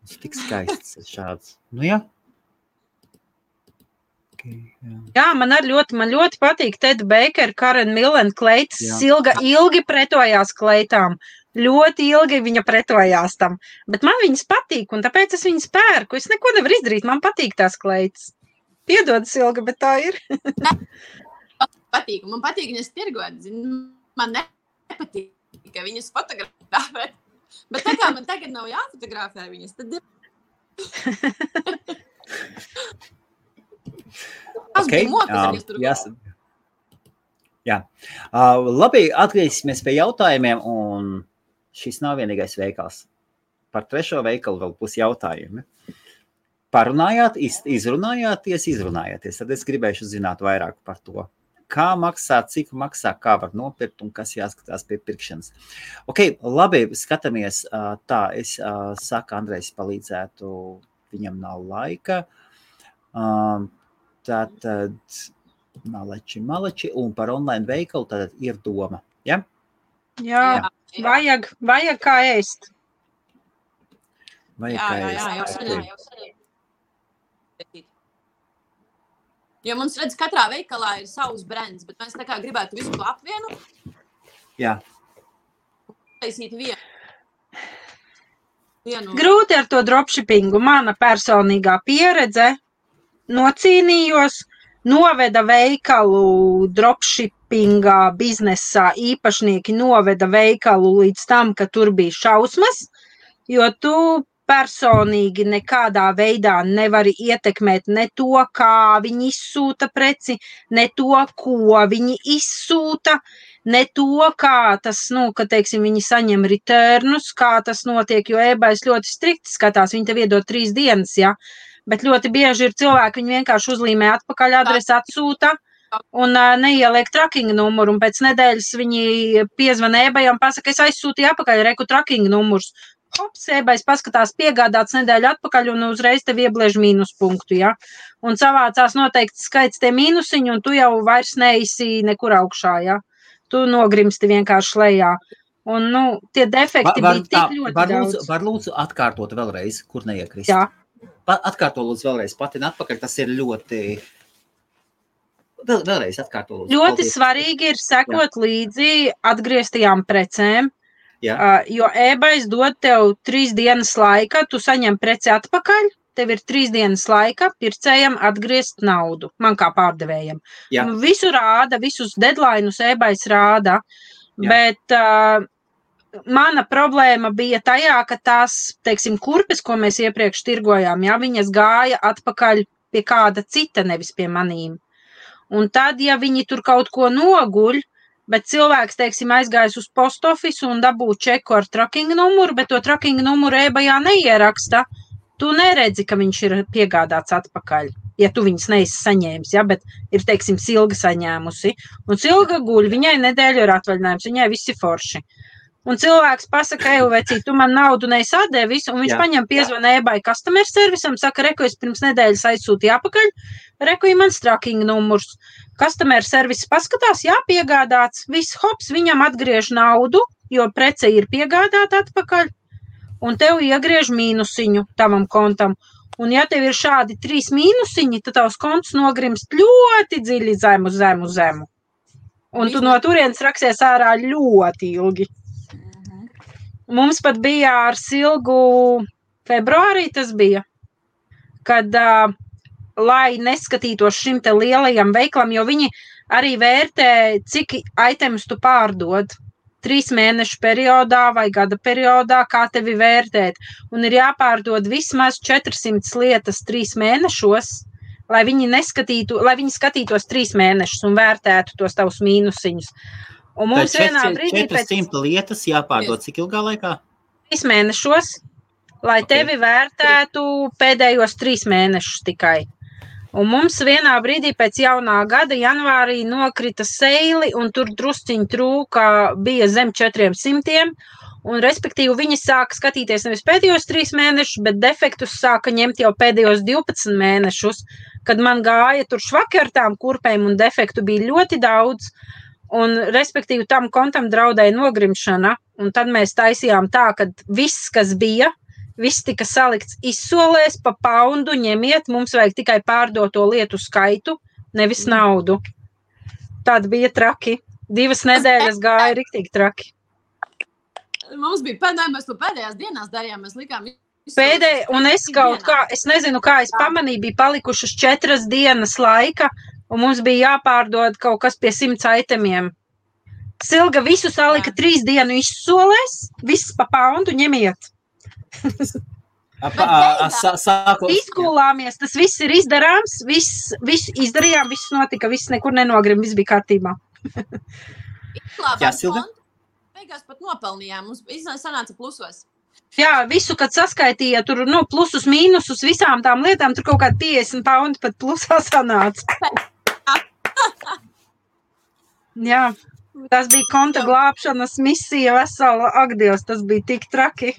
Tas tik skaists šāds. Jā. Okay, jā, man ļoti patīk Ted Baker, Karen Millen kleitas. Silga ilgi pretojās kleitām. Ļoti ilgi viņa pretojās tam, bet man viņas patīk, un tāpēc es viņas pērku. Es neko nevaru izdarīt, man patīk tās kleitas. Piedod, Silga, bet tā ir. Man patīk viņas tirgot, man nepatīk, ka viņas fotografē. Bet tā kā man tagad nav jāfotografē viņas, tad ir... Jā. Labi, atgriezīsimies pie jautājumiem, un šis nav vienīgais veikals. Par trešo veikalu vēl būs jautājumi. Parunājāt, izrunājāties, tad es gribēšu zināt vairāk par to. Kā maksā, cik maksā, kā var nopirkt un kas jāskatās pie pirkšanas. Ok, labi, skatāmies tā. Es saku, Andrejs palīdzētu, viņam nav laika. Tātad maleči, un par online veikalu tātad ir doma, ja? Jā. Vajag kā ēst. Jā. Jo mums redz, katrā veikalā ir savs brands, bet mēs tā kā gribētu visu to apvienot. Jā. Taisīt vienu. Grūti ar to dropshippingu. Mana personīgā pieredze nocīnījos, noveda veikalu dropshippingā biznesā, īpašnieki noveda veikalu līdz tam, ka tur bija šausmas, jo tu personīgi nekādā veidā nevari ietekmēt ne to, kā viņi izsūta preci, ne to, ko viņi izsūta, ne to, kā tas, ka, teiksim, viņi saņem returnus, kā tas notiek, jo eBays ļoti strikti skatās, viņi tev iedod 3 dienas, ja? Bet ļoti bieži ir cilvēki, viņi vienkārši uzlīmē atpakaļ adresi, atsūta un neieliek tracking numuru, un pēc nedēļas viņi piezvana eBayam un pasaka, es aizsūtīju apakaļ reku tracking numurs. Hops, eBays paskatās piegādāts nedēļu atpakaļ un uzreiz tev iebliež mīnuspunktu, ja? Un savācās noteikti skaits tie mīnusiņi, un tu jau vairs neisi nekur augšā, ja? Tu nogrimsti vienkārši lejā. Un, tie defekti bija tik ļoti daudz. Var lūdzu atkārtot vēlreiz, kur neiekrist? Jā. Atkārto lūdzu vēlreiz, patina atpakaļ, tas ir ļoti... Vēlreiz atkārto lūdzu. Ļoti svarīgi ir sekot līdzi atgrieztajām precēm, jo eBays dod tev 3 dienas laika, tu saņem preci atpakaļ, tev ir 3 dienas laika pircējam atgriezt naudu, man kā pārdevējam. Visu rāda, visus deadlineus eBays rāda, bet... Mana problēma bija tajā, ka tās, teiksim, kurpes, ko mēs iepriekš tirgojām, viņas gāja atpakaļ pie kāda cita, nevis pie manīm. Un tad, ja viņi tur kaut ko noguļ, bet cilvēks, teiksim, aizgājis uz post office un dabū čeku ar tracking numuru, bet to tracking numuru e-bajā neieraksta. Tu neredzi, ka viņš ir piegādāts atpakaļ, ja tu viņas neesi saņēmis, ja, bet ir, teiksim, Silga saņēmusi. Un Silga guļ, viņai nedēļu ir atvaļinājums, viņai viss ir forši. Un cilvēks pasaka, vecīt, tu man naudu neizsādēji visu, un viņš paņem piezvana e-baya customer serviceam, saka, reku, es pirms nedēļas aizsūtīju apakaļ, reku, ir mans tracking numurs. Customer service paskatās, jā, piegādāts, viss hops, viņam atgriež naudu, jo prece ir piegādāta atpakaļ. Un tev iegriež mīnusiņu tavam kontam. Un ja tev ir šādi 3 mīnusiņi, tad tavs konts nogrimst ļoti dziļi zemu. Un tu no turienes raksies ārā ļoti ilgi. Mums pat bija ar Silgu februārī tas bija, kad, lai neskatītos šim te lielajam veiklam, jo viņi arī vērtē, cik itemus tu pārdod. 3 mēnešu periodā vai gada periodā, kā tevi vērtēt. Un ir jāpārdod vismaz 400 lietas 3 mēnešos, lai viņi skatītos 3 mēnešus un vērtētu tos tavus mīnusiņus. Un mums vienā brīdī 400 lietas jāpārdod cik ilgā laikā? 3 mēnešos, lai tevi vērtētu pēdējos 3 mēnešus tikai. Un mums vienā brīdī pēc jaunā gada janvārī nokrita seili, un tur drusciņi trūka, bija zem 400, un respektīvi viņi sāka skatīties nevis pēdējos 3 mēnešus, bet defektus sāka ņemt jau pēdējos 12 mēnešus, kad man gāja tur švaki ar tām kurpēm, un defektu bija ļoti daudz, un respektīvi tam kontam draudēja nogrimšana, un tad mēs taisījām tā, ka viss, kas bija, viss tika salikts izsolēs pa poundu, ņemiet, mums vajag tikai pārdoto lietu skaitu, nevis naudu. Tad bija traki. 2 nedēļas gāja riktīgi traki. Mums bija mēs to pēdējās dienās darījām, mēs likām un es kaut kā, es nezinu, kā es pamanīju, bija palikušas 4 dienas laika, un mums bija jāpārdod kaut kas pie 100 itemiem. Silga visu salika 3 dienu izsolēs, viss pa poundu ņemiet. Izkulāmies, tas viss ir izdarāms, viss izdarījām, viss notika, viss nekur nenogrim, viss bija kārtībā. Jā, Silga? Beigās pat nopelnījām, mums sanāca plusos. Jā, visu, kad saskaitīja tur, plusus, mīnusus, visām tām lietām, tur kaut kādi 50 paundi pat plusā sanāca. Jā, tas bija konta glābšanas misija vesela, ak Dievs, tas bija tik traki.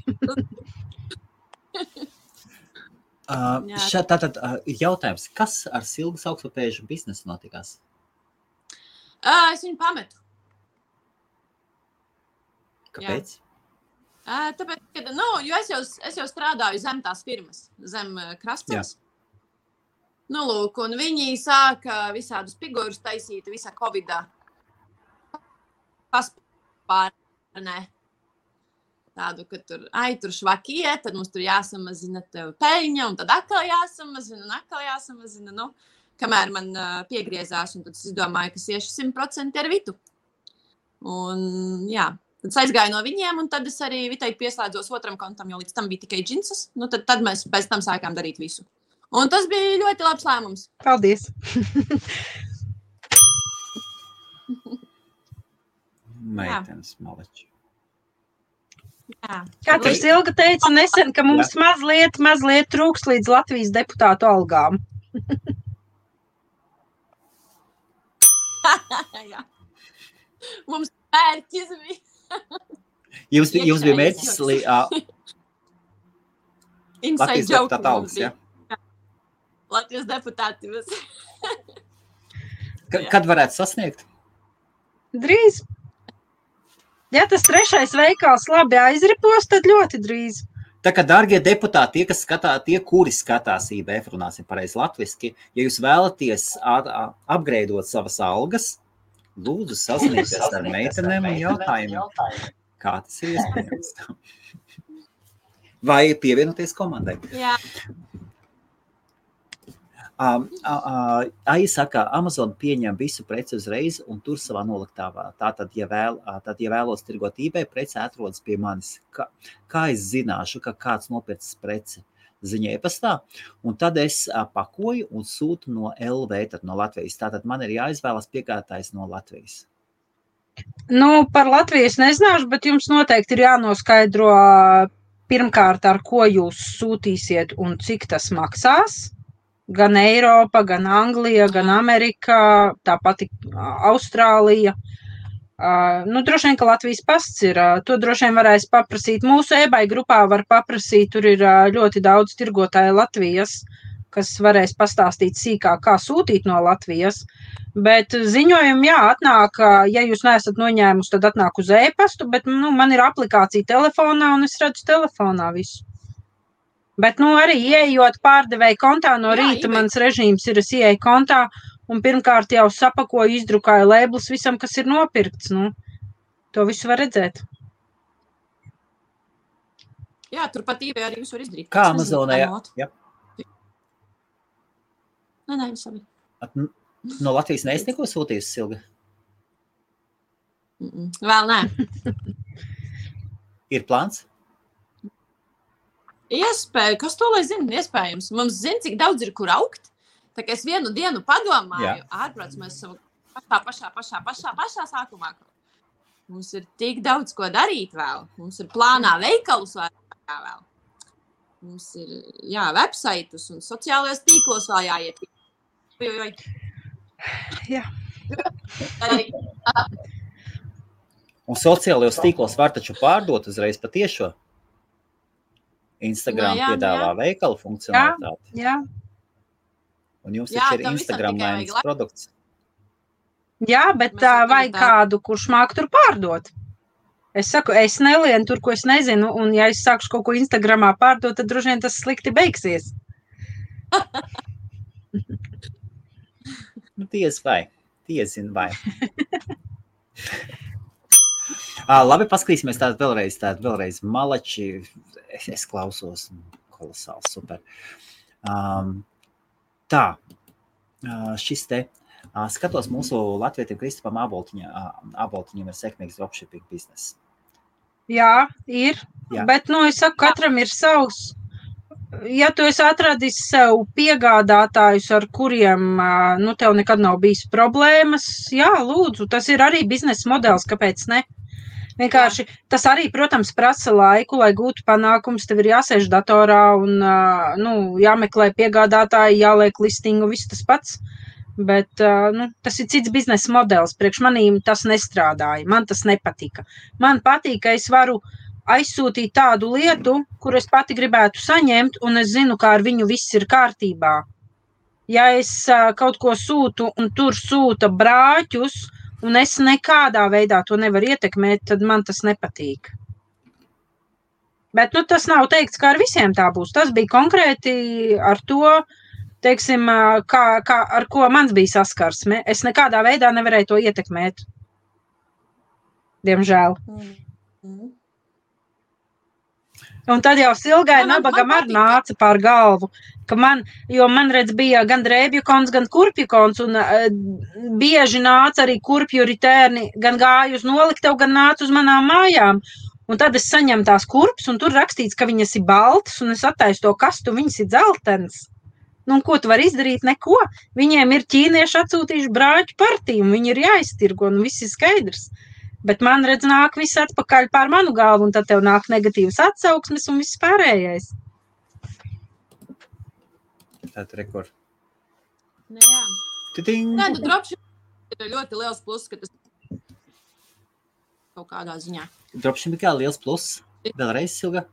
Tātad jautājums, kas ar Silgas augstpapēžu biznesu notikās? Es viņu pametu. Kāpēc? Tāpēc, ka, jo es jau strādāju zem tās firmas, zem Krastceļas. Lūk, un viņi sāka visādus figūrus taisīt visā Covidā. Paspārnē. Tādu, ka tur švakie, tad mums tur jāsamazina tev peļņa, un tad atkal jāsamazina, kamēr man piegriezās, un tad es domāju, ka iešu 100% ar Vitu. Un, jā, tad es aizgāju no viņiem, un tad es arī Vitai pieslēdzos otram kontam, jo līdz tam bija tikai džinsas, tad mēs pēc tam sākām darīt visu. Un tas bija ļoti labs lēmums. Paldies! Meitenes maleči. Kā tur Silga teica nesen, ka mums mazliet trūks līdz Latvijas deputātu algām. Jā. Mums mērķis bija. Jums bija mērķis Latvijas deputātu algas, jā? Latvijas deputāti. Kad varētu sasniegt? Drīz. Ja tas 3. veikals labi aizripos, tad ļoti drīz. Tā kā, dārgie deputāti, tie, kuri skatās IBF, runāsim pareizi latviski, ja jūs vēlaties upgradeot savas algas, lūdzu sazināties ar meitenēm un jautājumiem, kā tas ir iespējams. Vai pievienoties komandai. Jā. Aija saka, Amazon pieņem visu preci uzreiz un tur savā noliktavā. Tātad, ja vēlos tirgot eBay, preci atrodas pie manis. Kā es zināšu, ka kāds nopircis preci? Ziņa e-pastā, un tad es pakoju un sūtu no LV, tad no Latvijas. Tātad man ir jāizvēlas piegādātājs no Latvijas. Nu, par Latviju es nezināšu, bet jums noteikti ir jānoskaidro pirmkārt, ar ko jūs sūtīsiet un cik tas maksās. Gan Eiropa, gan Anglija, gan Amerika, tāpat Austrālija. Nu, droši vien, ka Latvijas pasts ir. To droši vien varēs paprasīt. Mūsu eBay grupā var paprasīt, tur ir ļoti daudz tirgotāju Latvijas, kas varēs pastāstīt sīkāk, kā sūtīt no Latvijas. Bet ziņojumi, atnāk, ja jūs neesat noņēmusi, tad atnāk uz e-pastu, bet man ir aplikācija telefonā un es redzu telefonā visu. Bet arī ieejot pārdevēju kontā no rīta, mans režīms ir, es ieeju kontā un pirmkārt jau sapakoju, izdrukāju lēblus visam, kas ir nopirkts. To visu var redzēt. Jā, turpat eBay arī visu var izdarīt. Kā Amazonē, jā. Nē, sabi. No Latvijas neesi neko sūtījusi, Silga? Vēl nē. Ir plāns? Iespēja, kas to lai zina? Iespējams. Mums zina, cik daudz ir, kur augt. Tā kā es vienu dienu padomāju, ārprāts mēs savu pašā sākumā. Mums ir tik daudz, ko darīt vēl. Mums ir plānā veikalus vēl. Mums ir, websaitus un sociālajos tīklos vēl jāiet. Jā. Un sociālajos tīklos var taču pārdot uzreiz patiešo. Instagram piedāvā veikalu funkcionalitāti. Jā. Un jums taču ir Instagram-lainas produkts. Jā, bet vajag kādu, kurš māk tur pārdot. Es saku, es nelienu tur, ko es nezinu, un ja es sākšu kaut ko Instagramā pārdot, tad droši vien tas slikti beigsies. Tiezin vai. Labi, paskatīsimies vēlreiz malači. Es klausos, kolosāli, super. Šis te, skatos mūsu latvietim Kristupam Aboltiņam ir sekmīgs dropshipping bizness. Jā, ir, bet, es saku, katram ir savs. Ja tu esi atradis sev piegādātājus, ar kuriem, tev nekad nav bijis problēmas, lūdzu, tas ir arī biznesa modelis, kāpēc ne? Vienkārši tas arī, protams, prasa laiku, lai gūtu panākums, tev ir jāsēž datorā un, jāmeklē piegādātāji, jāliek listingu, viss tas pats, bet, tas ir cits biznesa modelis, priekš manīm tas nestrādāja, man tas nepatika. Man patīk, ka es varu aizsūtīt tādu lietu, kur es pati gribētu saņemt, un es zinu, kā ar viņu viss ir kārtībā. Ja es kaut ko sūtu, un tur sūta brāķus, un es nekādā veidā to nevaru ietekmēt, tad man tas nepatīk. Bet, tas nav teikts, ka ar visiem tā būs. Tas bija konkrēti ar to, teiksim, ar ko mans bija saskarsme. Es nekādā veidā nevarēju to ietekmēt. Diemžēl. Un tad jau Silgai nabagam arī nāca pār galvu, ka man redz bija gan drēbju kons, gan kurpju kons, un bieži nāca arī kurpju ritērni, gan gāju uz noliktevu, gan nāca uz manām mājām. Un tad es saņemu tās kurpes, un tur rakstīts, ka viņas ir baltas, un es attaisu to kastu, viņas ir dzeltenas. Un ko tu vari izdarīt? Neko. Viņiem ir ķīnieši atsūtījuši brāķu partiju, un viņi ir jāiztirgo, un viss ir skaidrs. Bet man redz nāk viss atpakaļ pār manu galvu, un tad tev nāk negatīvas atsauksmes un viss pārējais. Tātad rekord. Jā. Nē, dropshipping ir ļoti liels pluss, ka tas kaut kādā ziņā. Dropshipping kā liels pluss? Vēlreiz, Silga?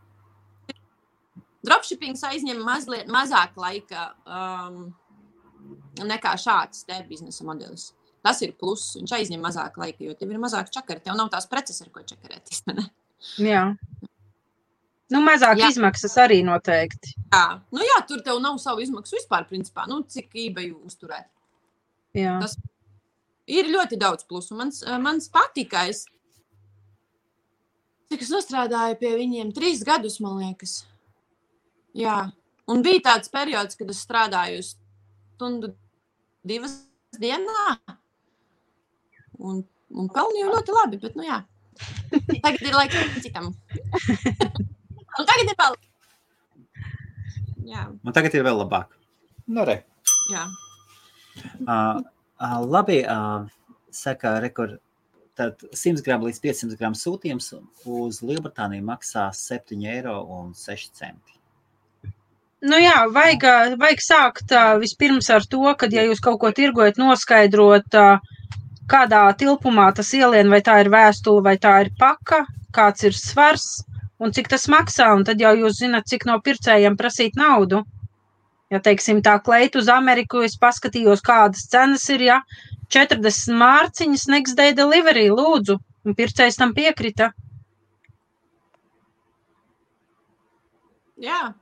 Dropshippings aizņem mazāk laika nekā šāds te biznesa modelis. Tas ir pluss, viņš aizņem mazāk laika, jo tev ir mazāk čakari, tev nav tās preces, ar ko čakarēties, ne? Jā. Mazāk izmaksas arī noteikti. Jā, tur tev nav savu izmaksu vispār, principā, cik eBay uzturēt. Jā. Tas ir ļoti daudz plusu. Mans patika, cik es nostrādāju pie viņiem 3 gadus, man liekas. Jā, un bija tāds periods, kad es strādāju stundu 2 dienā. Un pelnīju ļoti labi, bet, jā. Tagad ir laiks citam. Un tagad ir vēl. Jā. Un tagad ir vēl labāk. Re. Jā. Labi, saka, rekord, tad 100 gramu līdz 500 gramu sūtījums uz Lielbritāniju maksā 7,06 €. Nu jā, vajag sākt vispirms ar to, kad, ja jūs kaut ko tirgojat, noskaidrot, kādā tilpumā tas ielien, vai tā ir vēstule, vai tā ir paka, kāds ir svars un cik tas maksā, un tad jau jūs zināt, cik no pircējiem prasīt naudu. Ja, teiksim, tā kleita uz Ameriku, es paskatījos, kādas cenas ir, ja 40 mārciņas next day delivery, lūdzu, un pircējs tam piekrita. Jā.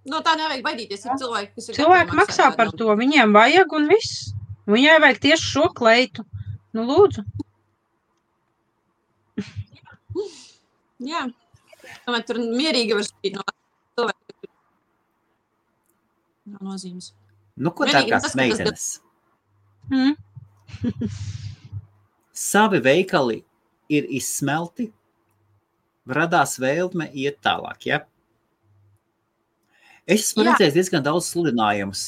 No tā nevajag baidīties, ir cilvēki, kas ir Cilvēki maksā par to, viņiem vajag un viss. Viņai vajag tieši šo kleitu. Nu, lūdzu. Jā. Tomēr tur mierīgi var spīt no cilvēku. Nav nozīmes. Nu, ko dārgās meitenes? Savi veikali ir izsmelti, radās vēlme iet tālāk, ja? Es esmu redzējis diezgan daudz sludinājumus.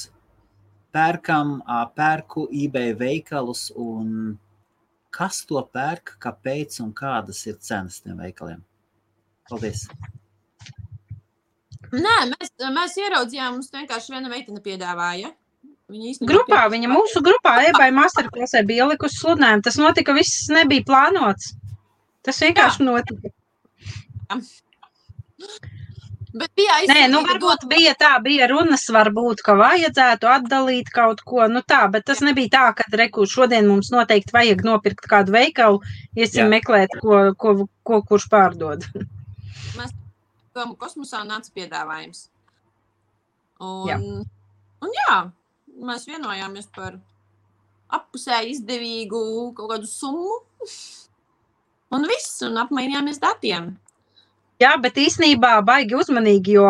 Pērku eBay veikalus un kas to pērk, kāpēc un kādas ir cenas tiem veikaliem? Paldies. Nē, mēs ieraudzījām, mums vienkārši viena meitene piedāvāja. Mūsu grupā eBay masterclassē bija ielikusi sludinājumu. Tas notika, viss nebija plānots. Tas vienkārši notika. Bet bija varbūt bija runas, varbūt, ka vajadzētu atdalīt kaut ko, bet tas nebija tā, ka šodien mums noteikti vajag nopirkt kādu veikalu, iesim meklēt, ko kurš pārdod. Mēs kosmosā nāca piedāvājums. Un mēs vienojāmies par appusēji izdevīgu kaut kādu summu un viss, un apmainījāmies datiem. Jā, bet īstenībā baigi uzmanīgi, jo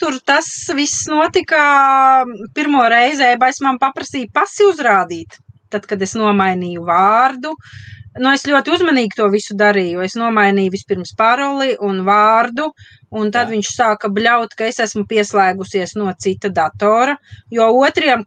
tur tas viss notika pirmo reizi, eBay man paprasīja pasi uzrādīt, tad, kad es nomainīju vārdu. Es ļoti uzmanīgi to visu darīju. Es nomainīju vispirms paroli un vārdu, un tad viņš sāka bļaut, ka es esmu pieslēgusies no cita datora, jo otriem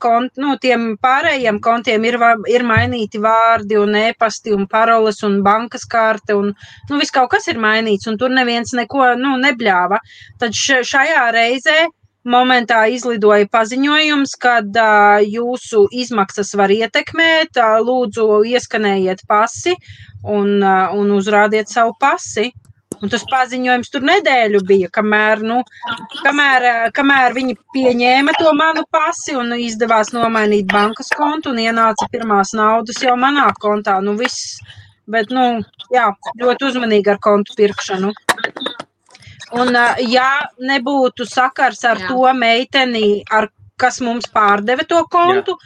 tiem pārējiem kontiem ir mainīti vārdi un e-pasti un paroles un bankas karte un viss kaut kas ir mainīts, un tur neviens neko nebļāva. Tad šajā reizē momentā izlidoja paziņojums, kad jūsu izmaksas var ietekmēt, lūdzu ieskanējiet pasi un uzrādiet savu pasi. Un tas paziņojums tur nedēļu bija, kamēr viņi pieņēma to manu pasi un izdevās nomainīt bankas kontu un ienāca pirmās naudas jau manā kontā. Viss, bet, ļoti uzmanīgi ar kontu pirkšanu. Un, ja nebūtu sakars ar to meiteni, kas mums pārdeva to kontu,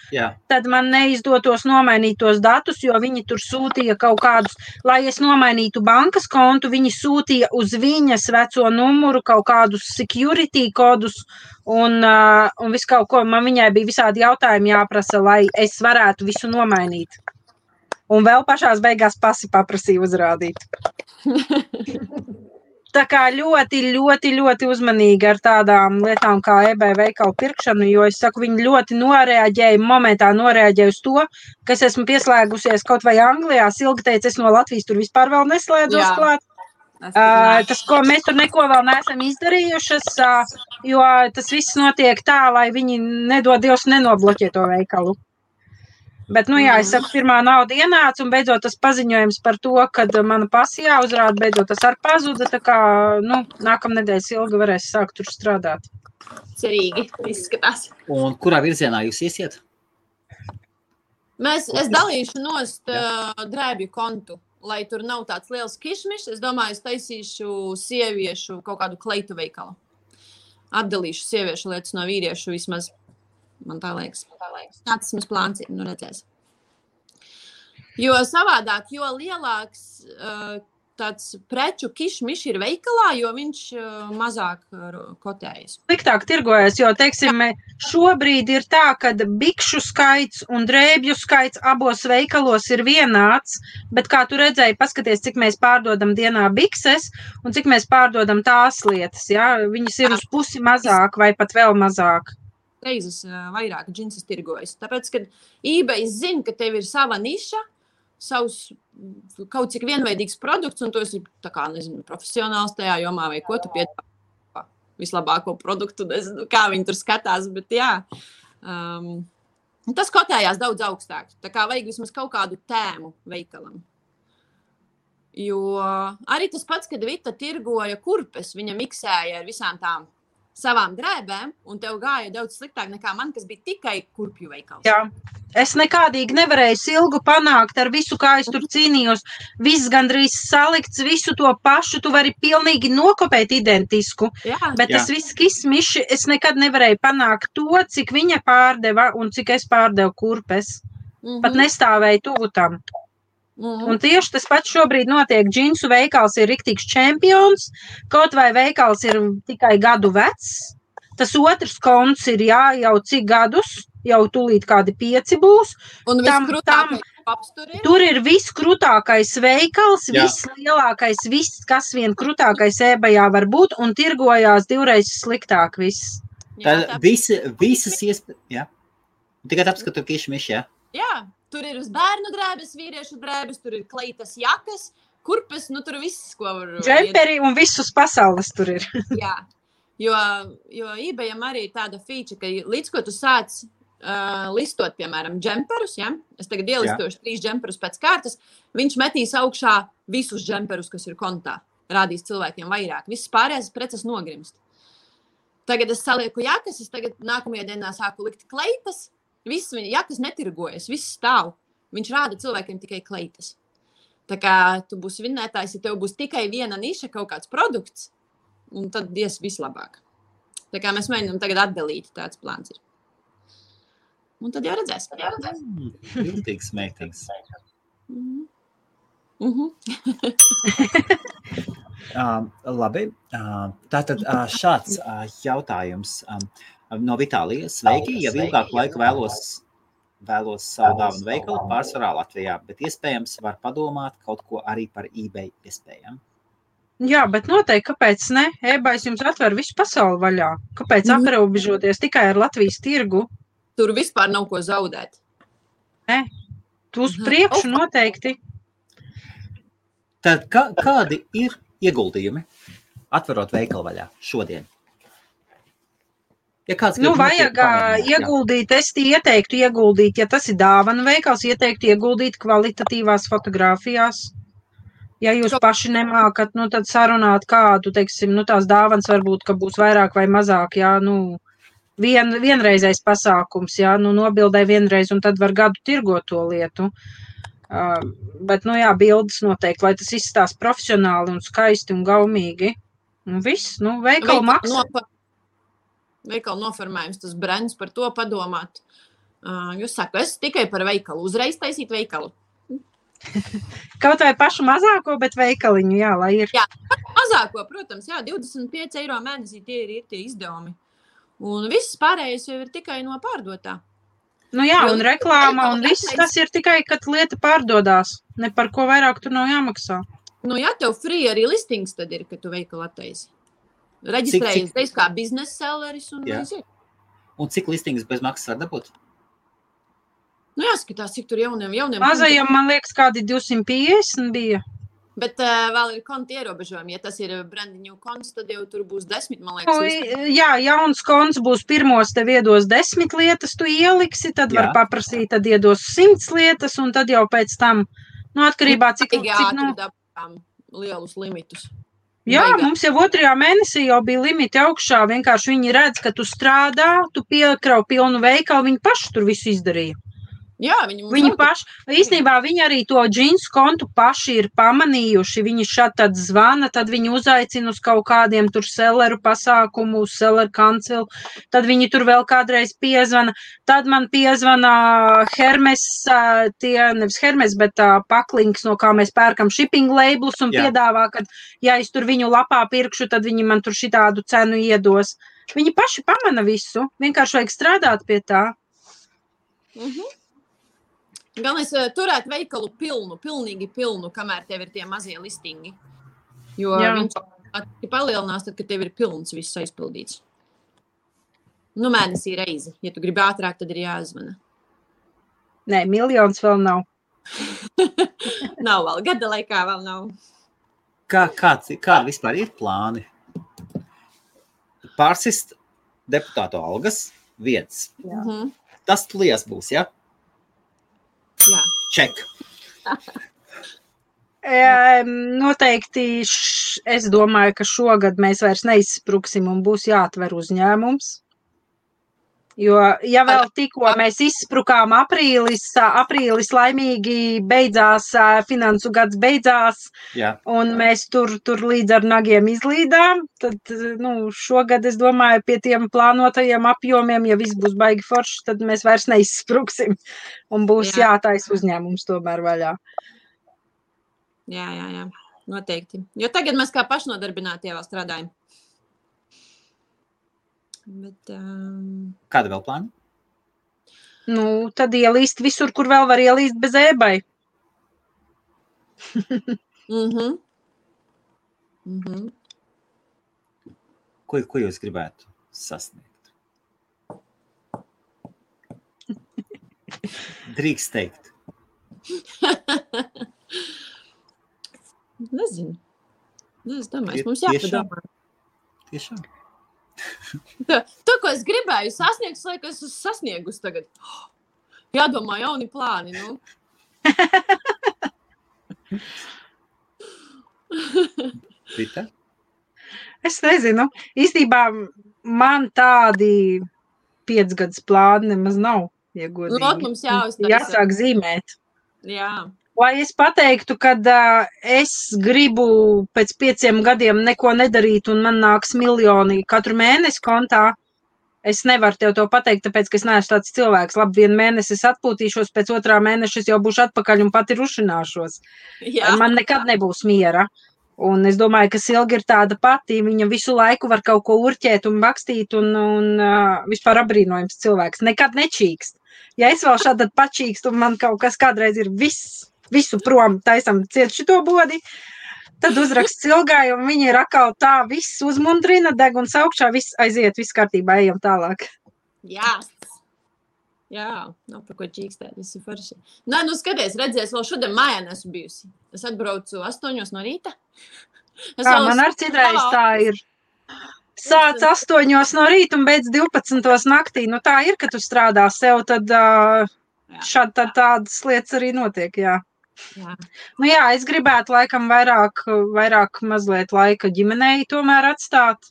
tad man neizdotos nomainīt tos datus, jo viņi tur sūtīja kaut kādus, lai es nomainītu bankas kontu, viņi sūtīja uz viņas veco numuru kaut kādus security kodus un visu kaut ko. Man viņai bija visādi jautājumi jāprasa, lai es varētu visu nomainīt. Un vēl pašās beigās pasi paprasīja uzrādīt. Tā kā ļoti, ļoti, ļoti uzmanīgi ar tādām lietām kā eBay veikalu pirkšanu, jo es saku, viņi ļoti momentā noreaģēja uz to, ka es esmu pieslēgusies kaut vai Anglijā. Silga teica, es no Latvijas tur vispār vēl neslēdzos klāt. Tas, ko mēs tur neko vēl neesam izdarījušas, jo tas viss notiek tā, lai viņi nedod Dievs nenobloķē to veikalu. Bet, es saku, pirmā nauda ienāca un beidzot tas paziņojums par to, kad mana pasi jāuzrāda, beidzot tas arī pazuda, tā kā, nākamnedēļ Silga varēs sākt tur strādāt. Cerīgi, izskatās. Un kurā virzienā jūs iesiet? Es dalīšu nost drēbju kontu, lai tur nav tāds liels kišmišs. Es domāju, es taisīšu sieviešu kaut kādu kleitu veikalu. Atdalīšu sieviešu lietas no vīriešu vismaz. Man tā liekas. Tāds mums plāns ir, redzēs. Jo savādāk, jo lielāks tāds preču kišmiš ir veikalā, jo viņš mazāk kotējas. Sliktāk tirgojas, jo, teiksim, šobrīd ir tā, ka bikšu skaits un drēbju skaits abos veikalos ir vienāds, bet kā tu redzēji, paskaties, cik mēs pārdodam dienā bikses un cik mēs pārdodam tās lietas, ja? Viņas ir uz pusi mazāk vai pat vēl mazāk. Reizes vairāk džinsas tirgojas. Tāpēc, kad eBay zina, ka tev ir sava niša, savus kaut cik vienveidīgs produkts, un tu esi tā kā, nezinu, profesionāls tajā jomā, vai ko tu piedāvā vislabāko produktu, nezinu, kā viņi tur skatās, bet jā. Tas kotējās daudz augstāk. Tā kā vajag vismaz kaut kādu tēmu veikalam. Jo arī tas pats, kad Vita tirgoja kurpes, viņa miksēja ar visām tām savām drēbēm, un tev gāja daudz sliktāk nekā man, kas bija tikai kurpju veikals. Jā. Es nekādīgi nevarēju silgu panākt ar visu, kā es tur cīnījos. Viss gandrīz salikts, visu to pašu, tu vari pilnīgi nokopēt identisku. Jā. Bet tas viss kismiši, es nekad nevarēju panākt to, cik viņa pārdeva un cik es pārdevu kurpes. Pat nestāvēju tuvu tam. Un tieši tas pats šobrīd notiek. Džinsu veikals ir riktīgs čempions, kaut vai veikals ir tikai gadu vecs. Tas otrs konts ir jau cik gadus, jau tūlīt kādi 5 būs. Un viskrūtākais paps tur ir? Tur ir viskrutākais veikals, vislielākais, viss, kas vien krutākais eBayā var būt, un tirgojās 2 reizes sliktāk viss. Tad visas iespējas, jā. Tikai tāpēc, ka tur kišmiši, jā. Jā, tur ir uz bērnu drēbes, vīriešu drēbes, tur ir kleitas jakas, kurpes, nu tur viss, ko var... Džemperi un visus pasaules tur ir. Jā, jo eBayam arī tāda feature, ka līdz ko tu sāc listot, piemēram, džemperus, ja? Es tagad ielistošu 3 džemperus pēc kārtas, viņš metīs augšā visus džemperus, kas ir kontā. Rādīs cilvēkiem vairāk. Viss pārējās preces nogrimst. Tagad es salieku jakas, es tagad nākamajā dienā sāku likt kleitas, viss viņa jakas netirgojas, viss stāv. Viņš rāda cilvēkiem tikai kleitas. Tā kā tu būsi vinnētājs, ja tev būs tikai viena niša, kaut kāds produkts, un tad ies vislabāk. Tā kā mēs mēģinām tagad atdalīt, tāds plāns ir. Un tad jau redzēs. Jūtīgs, smēktīgs. Labi, tātad šāds jautājums no Vitālijas. Sveiki, ja ilgāku laiku vēlos savu dāvanu veikalu pārsvarā Latvijā, bet iespējams var padomāt kaut ko arī par eBay iespējām. Jā, bet noteikti, kāpēc ne? eBays jums atver visu pasauli vaļā. Kāpēc aprobežoties tikai ar Latvijas tirgu? Tur vispār nav ko zaudēt. Ne, tu uz priekšu noteikti. Tad kādi ir ieguldījumi atverot veikalu vaļā šodien? Ja vajag ieguldīt, es ieteiktu ieguldīt, ja tas ir dāvanu veikals, ieteiktu ieguldīt kvalitatīvās fotogrāfijās. Ja jūs paši nemākat, tad sarunāt kādu, teiksim, tās dāvanas varbūt, ka būs vairāk vai mazāk, vienreizais pasākums, nobildē vienreiz, un tad var gadu tirgot to lietu. Bet, bildes noteikti, lai tas izstās profesionāli un skaisti un gaumīgi. Un viss, veikalu maksā. Veikalu noformējums, tas brands par to padomāt. Jūs saku, es tikai par veikalu, uzreiz taisīt veikalu. Kaut vai pašu mazāko, bet veikaliņu, lai ir. Jā, mazāko, protams, 25 eiro mēnesī tie ir tie izdevumi. Un viss pārējais jau ir tikai no pārdotā. Un reklāma un viss tas ir tikai, kad lieta pārdodās. Ne par ko vairāk tur nav jāmaksā. Tev free arī listings tad ir, kad tu veikalu attaisi. Reģistrējies, teiks kā biznesa selleris un aiziet. Un cik listings bez maksas var dabūt? Jāskatās, cik tur jauniem. Mazajam, man liekas, kādi 250 bija. Bet vēl ir konti ierobežojumi. Ja tas ir brandiņu konts, tad jau tur būs 10, man liekas. Jauns konts būs pirmos, tev iedos 10 lietas, tu ieliksi, tad var paprasīt, tad iedos 100 lietas, un tad jau pēc tam, atkarībā cik dabām lielus limitus. Jā, mums jau 2. mēnesī jau bija limiti augšā, vienkārši viņi redz, ka tu strādā, tu piekrau pilnu veikalu, viņi paši tur visu izdarīja. Jā, viņi paši, īstenībā viņi arī to džinsu kontu paši ir pamanījuši, viņi tad zvana, tad viņi uzaicina uz kaut kādiem tur selleru pasākumu, uz selleru kancelu, tad viņi tur vēl kādreiz piezvana, tad man piezvana Hermes, nevis Hermes, bet paklinks, no kā mēs pērkam shipping labelus un piedāvā, ka ja es tur viņu lapā pirkšu, tad viņi man tur šitādu cenu iedos. Viņi paši pamana visu, vienkārši vajag strādāt pie tā. Galvenais turēt veikalu pilnīgi pilnu, kamēr tev ir tie mazie listingi. Jo viņš palielinās, tad, kad tev ir pilns viss aizpildīts. Mēnesī reizi. Ja tu gribi ātrāk, tad ir jāzvana. Nē, 1 miljons vēl nav. Nav vēl, gada laikā vēl nav. Kādi vispār ir plāni? Pārsist deputātu algas viens. Mhm. Tas tulies būs, ja? Jā. Ček. Noteikti es domāju, ka šogad mēs vairs neizspruksim un būs jāatver uzņēmums. Jo, ja vēl tikko mēs izsprukām aprīlis laimīgi beidzās, finansu gads beidzās, Jā. un mēs tur līdz ar nagiem izlīdām, tad, šogad, es domāju, pie tiem plānotajiem apjomiem, ja viss būs baigi forši, tad mēs vairs neizspruksim, un būs jātais uzņēmums tomēr vaļā. Jā, noteikti. Jo tagad mēs kā pašnodarbinātie vēl strādājam. Bet, Kāda vēl plāna? Tad ielīst visur, kur vēl var ielīst bez ēbai. Ko jūs gribētu sasniegt? Drīkst teikt. Nezinu. Es domāju, mums jāpadomā. Tiešām. To, ko es gribēju sasniegt, laikam es esmu sasniegusi tagad. Jādomā jauni plāni, Rita? Es nezinu. Īstībā man tādi 5 gadus plāni nemaz nav, ja godīgi. Mums jāuztais. Jāsāk zīmēt. Jā. Lai es pateiktu, kad es gribu pēc 5 gadiem neko nedarīt un man nāks miljoni katru mēnesi kontā, es nevaru tev to pateikt, tāpēc, ka es neesmu tāds cilvēks. Labi, 1 mēnesi es atpūtīšos, pēc 2. mēneša es jau būšu atpakaļ un pati rušināšos. Jā. Man nekad nebūs miera. Un es domāju, ka Silga ir tāda pati, viņa visu laiku var kaut ko urķēt un bakstīt un vispār apbrīnojams cilvēks. Nekad nečīkst. Ja es vēl šādi pačīkstu un man kaut kas kādreiz ir visu prom, taisam ciet šito bodi, tad uzrakst Silgai, un viņi ir atkal tā, viss uzmundrina, deguns augšā, viss aiziet, viss kārtībā, ejam tālāk. Jā, nav par ko čīkstēt, viss ir forši. Nē, skaties, redzēs, vēl šodien mājā nesu bijusi. Es atbraucu 8 no rīta. Man ar citreiz tā ir. Sāc 8 no rīta un beidz 12 naktī. Tā ir, ka tu strādā sev, tad šādi tādas lietas arī notiek, jā. Es gribētu laikam vairāk mazliet laika ģimenei tomēr atstāt.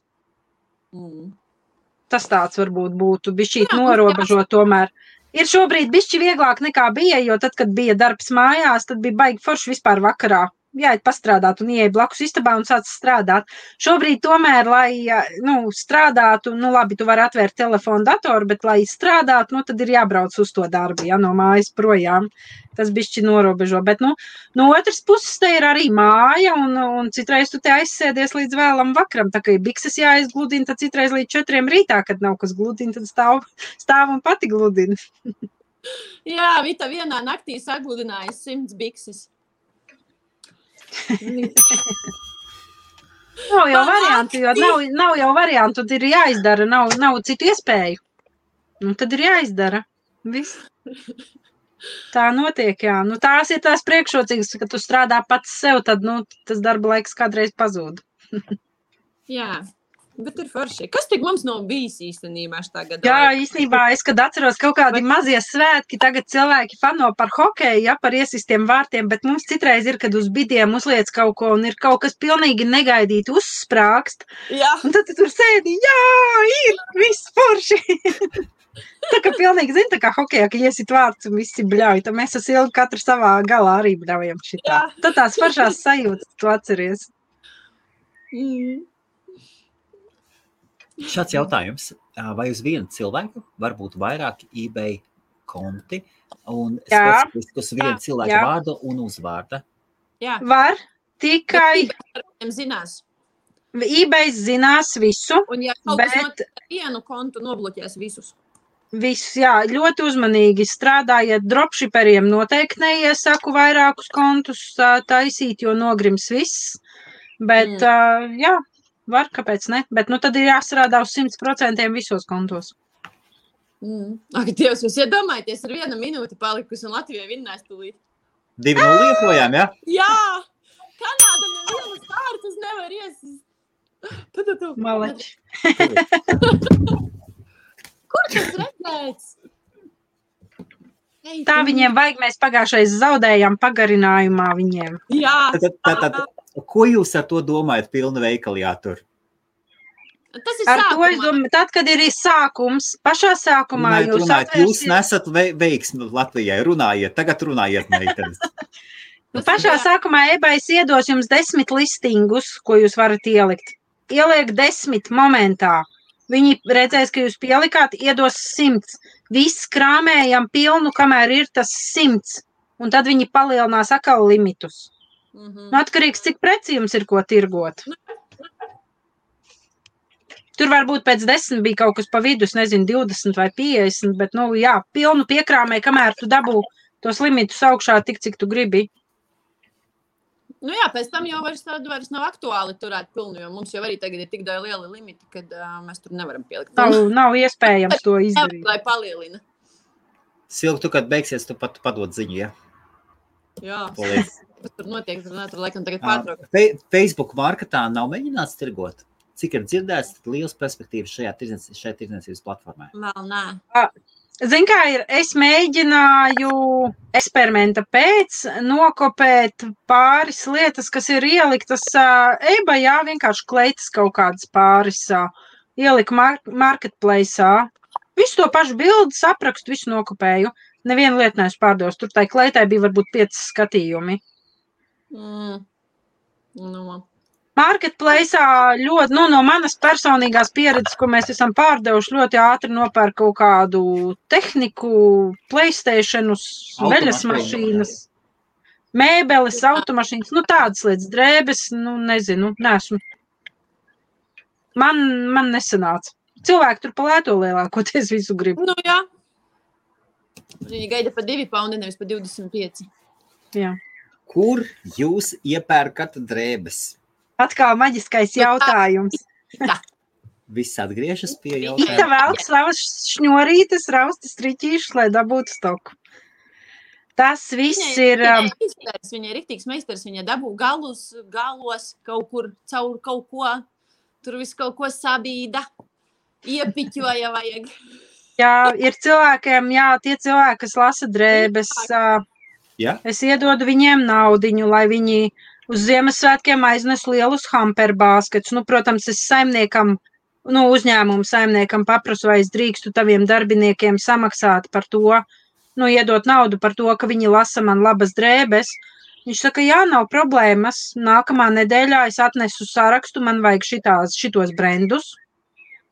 Tas tāds varbūt būtu bišķīt norobežot tomēr. Ir šobrīd bišķi vieglāk nekā bija, jo tad, kad bija darbs mājās, tad bija baigi forši vispār vakarā. Jāiet pastrādāt un ieeja blakus istabā un sāc strādāt. Šobrīd tomēr, lai strādātu, labi, tu vari atvērt telefonu, datoru, bet, lai strādātu, tad ir jābrauc uz to darbu, no mājas projām. Tas bišķi norobežo, bet, no otras puses te ir arī māja, un citreiz tu te aizsēdies līdz vēlam vakaram, tā kā ir bikses jāizgludina, tad citreiz līdz 4 rītā, kad nav kas gludina, tad stāv un pati gludina. Jā, Vita vienā naktī sagludināja 100 bikses. Nav jau variantu, jo nav jau variantu, tad ir jāizdara, nav citu iespēju. Tad ir jāizdara. Viss. Tā notiek, jā. Tās ir tās priekšrocības, ka tu strādā pats sev, tad, tas darba laiks kādreiz pazūd. Jā, bet ir forši. Kas tik mums nav bijis īstenībā šitā gadā? Jā, īstenībā es, kad atceros kaut kādi mazie svētki, tagad cilvēki fano par hokeju, par iesistiem vārtiem, bet mums citreiz ir, kad uz bidiem uzliec kaut ko un ir kaut kas pilnīgi negaidīti uzsprākst. Jā. Un tad tu tur sēdi, ir, viss forši. Tā kā pilnīgi, tā kā hokejā, ka iesit vārds un visi bļauj, tad mēs ar Silgu katru savā galā arī bļaujam šitā. Tad tās foršās sajūtas, tu atceries. Šāds jautājums. Vai uz vienu cilvēku var būt vairāki eBay konti un specifiski uz vienu cilvēku vārdu un uzvārda? Jā. Var, tikai... zinās. eBay zinās visu, un ja kaut kas notiek vienu kontu, nobloķēs visus. Viss, ļoti uzmanīgi strādājiet dropshipperiem, noteikti neiesaku vairākus kontus taisīt, jo nogrims viss, bet var, kāpēc ne, bet tad ir jāstrādā uz 100% visos kontos. Ak, Dievs, jūs iedomājaties, ir 1 minūte palikusi un Latvijai vinnēs tūlīt. 2-0 liepojām, ja? Jā! Kanāda nevienas kārtas nevar iesist. Tu. Maleči. Kur tas redzēts? Ei, Tā viņiem vajag, mēs pagājušais zaudējām pagarinājumā viņiem. Jā. Tad, ko jūs ar to domājat pilna veikali jātur? Tas ir Ar to es sākumā. domāju, tad, kad ir sākums, pašā sākumā jūs Jūs nesat veiksmi Latvijai, tagad runājiet, meitenes. Pašā sākumā ebais iedos jums 10 listingus, ko jūs varat ielikt. Ieliek 10 momentā. Viņi redzēs, ka jūs pielikāt, iedos 100. Viss krāmējam pilnu, kamēr ir tas 100. Un tad viņi palielinās atkal limitus. Atkarīgs, cik preci jums ir ko tirgot. Tur varbūt pēc 10 bija kaut kas pa vidu, nezinu, 20 vai 50, bet, pilnu piekrāmē, kamēr tu dabū tos limitus augšā tik, cik tu gribi. Pēc tam jau vairs nav aktuāli turēt pilnu, jo mums jau arī tagad ir tik daudz lieli limiti, kad mēs tur nevaram pielikt. Nav iespējams to izdarīt. Lai palielina. Silvi, tu, kad beigsies, tu pat padod ziņu, ja? Jā. Paldies. Kas tur notiek, tur laikam tagad pārtraukt. Facebook marketā nav mēģināts tirgot? Cik ir dzirdēts, tad liels perspektīvas šajā tirdzniecības platformā? Vēl nē. Zin kā ir, es mēģināju eksperimenta pēc nokopēt pāris lietas, kas ir ieliktas eBayā, vienkārši kleitas kaut kādas pāris ielika marketplace'ā. Visu to pašu bildes, aprakstu, visu nokopēju. Nevienu lietu neesmu pārdevusi. Tur tai kleitai bija varbūt 5 skatījumi. Marketplace'ā ļoti, no manas personīgās pieredzes, ko mēs esam pārdevuši, ļoti ātri nopērk kaut kādu tehniku, PlayStationus, veļas mašīnas, mēbeles, automašīnas, tādas lietas, drēbes, nezinu, neesmu. Man nesanāca. Cilvēki tur pa lēto lielākoties visu grib. Jā. Viņi gaida pa 2 paundi, nevis pa 25. Jā. Kur jūs iepērkat drēbes? Atkal maģiskais jautājums. Viss atgriežas pie Ita jautājuma. velk savas šņorītes, raustas riķīšus, lai dabūtu stoku. Tas viss ir... Viņa ir riktīgs meistars, viņa dabū galos kaut kur, caur kaut ko, tur visu kaut ko sabīda, iepiķoja vajag. Jā, ir cilvēkiem, tie cilvēki, kas lasa drēbes, es iedodu viņiem naudiņu, lai viņi uz Ziemassvētkiem aiznes lielus hamperbāsketus. Protams, es saimniekam, uzņēmumu saimniekam paprasu, vai es drīkstu taviem darbiniekiem samaksāt par to, iedot naudu par to, ka viņi lasa man labas drēbes. Viņš saka, jā, nav problēmas. Nākamā nedēļā es atnesu sarakstu, man vajag šitos brendus.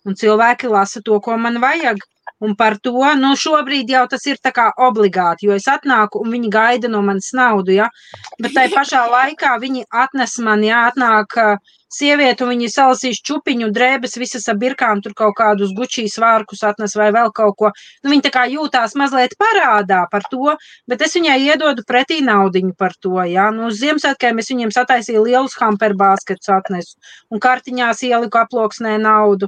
Un cilvēki lasa to, ko man vajag. Un par to, šobrīd jau tas ir tā kā obligāti, jo es atnāku un viņi gaida no manis naudu, ja. Bet tai pašā laikā viņi atnes man, atnāk sieviete un viņi salasīs čupiņu, drēbes, visas ar birkām, tur kaut kādus Gucci svārkus atnes vai vēl kaut ko. Viņi tā kā jūtās mazliet parādā par to, bet es viņai iedodu pretī naudiņu par to, ja. Uz Ziemassvētkiem es viņiem sataisīju lielus hamperbāsketus atnesu un kartiņās ieliku aploksnē naudu.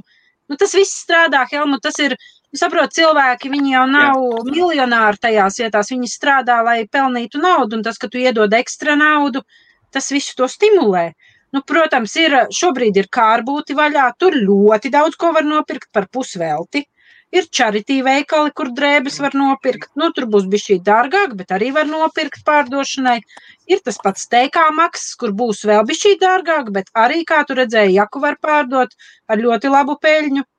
Tas viss strādā, Helmut, tas ir... Saprot, cilvēki, viņi jau nav miljonāri tajās vietās, viņi strādā, lai pelnītu naudu, un tas, ka tu iedod ekstra naudu, tas visu to stimulē. Protams, šobrīd ir kārbūti vaļā, tur ļoti daudz ko var nopirkt par pusvelti. Ir charity veikali, kur drēbes var nopirkt, tur būs bišķī dārgāk, bet arī var nopirkt pārdošanai. Ir tas pats TK maksas, kur būs vēl bišķī dārgāk, bet arī, kā tu redzēji, jaku var pārdot ar ļoti labu peļņu.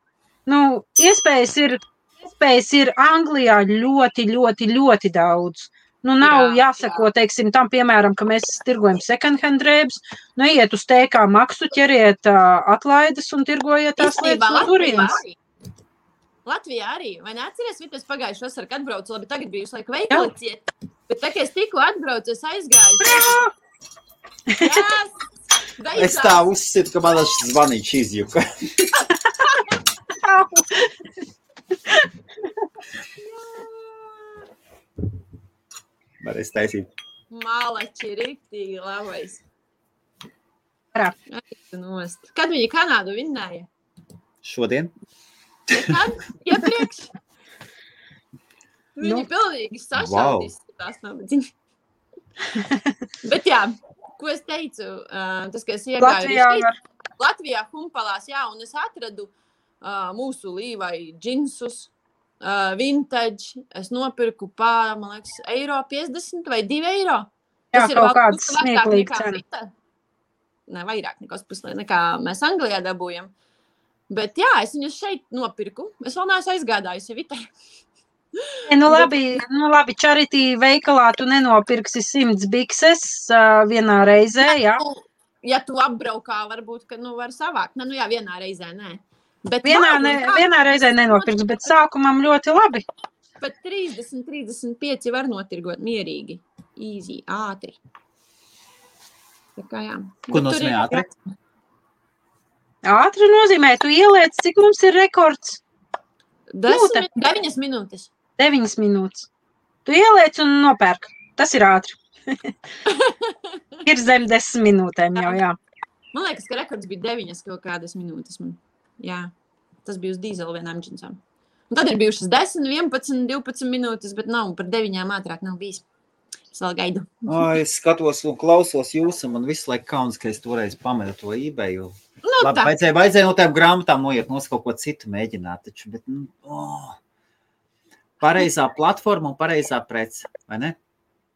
Iespējas ir Anglijā ļoti, ļoti, ļoti daudz. Nav jāsako, teiksim, tam, piemēram, ka mēs tirgojam second hand drēbes, iet uz TK maksu, ķeriet atlaides un tirgojiet tās lietas no turienes. Latvijā arī, vai neatceries, Vitas pagājuši vasarā, kad atbraucu, labi, tagad biju visu laiku veikali ciet, bet tā, ka es tikko atbraucu, es aizgāju. Es tā uzsitu, ka man zvanīts izjuka. Varēs taisīt. Malači, riktīgi labais. Nost. Kad viņi Kanādu vinnēja? Šodien? Kad? Iepriekš? Viņi pilnīgi sašaudīs tās nabadziņas. Bet jā, ko es teicu, tas, ka es iegāju Latvijā Humpalās, jā, un es atradu mūsu Līvai džinsus, vintage, es nopirku man liekas, €50 vai €2. Jā, kaut kāds smieklīgi cena. Ne, vairāk nekā mēs Anglijā dabūjam. Bet jā, es viņus šeit nopirku. Es vēl neesmu aizgādājusi Vitē. Nu labi, charity veikalā tu nenopirksi 100 bikses vienā reizē, jā? Ja tu apbraukā, varbūt, ka var savākt. Nu jā, vienā reizē, nē. Bet vienā reizē nenopirks, bet sākumam ļoti labi. Bet 30-35 var notirgot mierīgi. Easy, ātri. Tā kā jā. Ko nozīmē ātri? Ātri nozīmē, tu ieliec, cik mums ir rekords? 9 minūtes. 9 minūtes. Tu ieliec un nopērk. Tas ir ātri. Ir zem 10 minūtēm jau, jā. Man liekas, ka rekords bija 9 kaut kādas minūtes. Jā, tas bija uz dīzela vienām džinsām. Un tad ir bijušas 10, 11, 12 minūtes, bet nav par 9 ātrāk nav bijis. Es vēl gaidu. Es skatos un klausos jūs, un man visu laiku kauns, ka es toreiz pametu to eBayu. Labi, vajadzēja no tām grāmatām noiet, kaut ko citu mēģināt, taču, bet, pareizā platforma un pareizā prece, vai ne?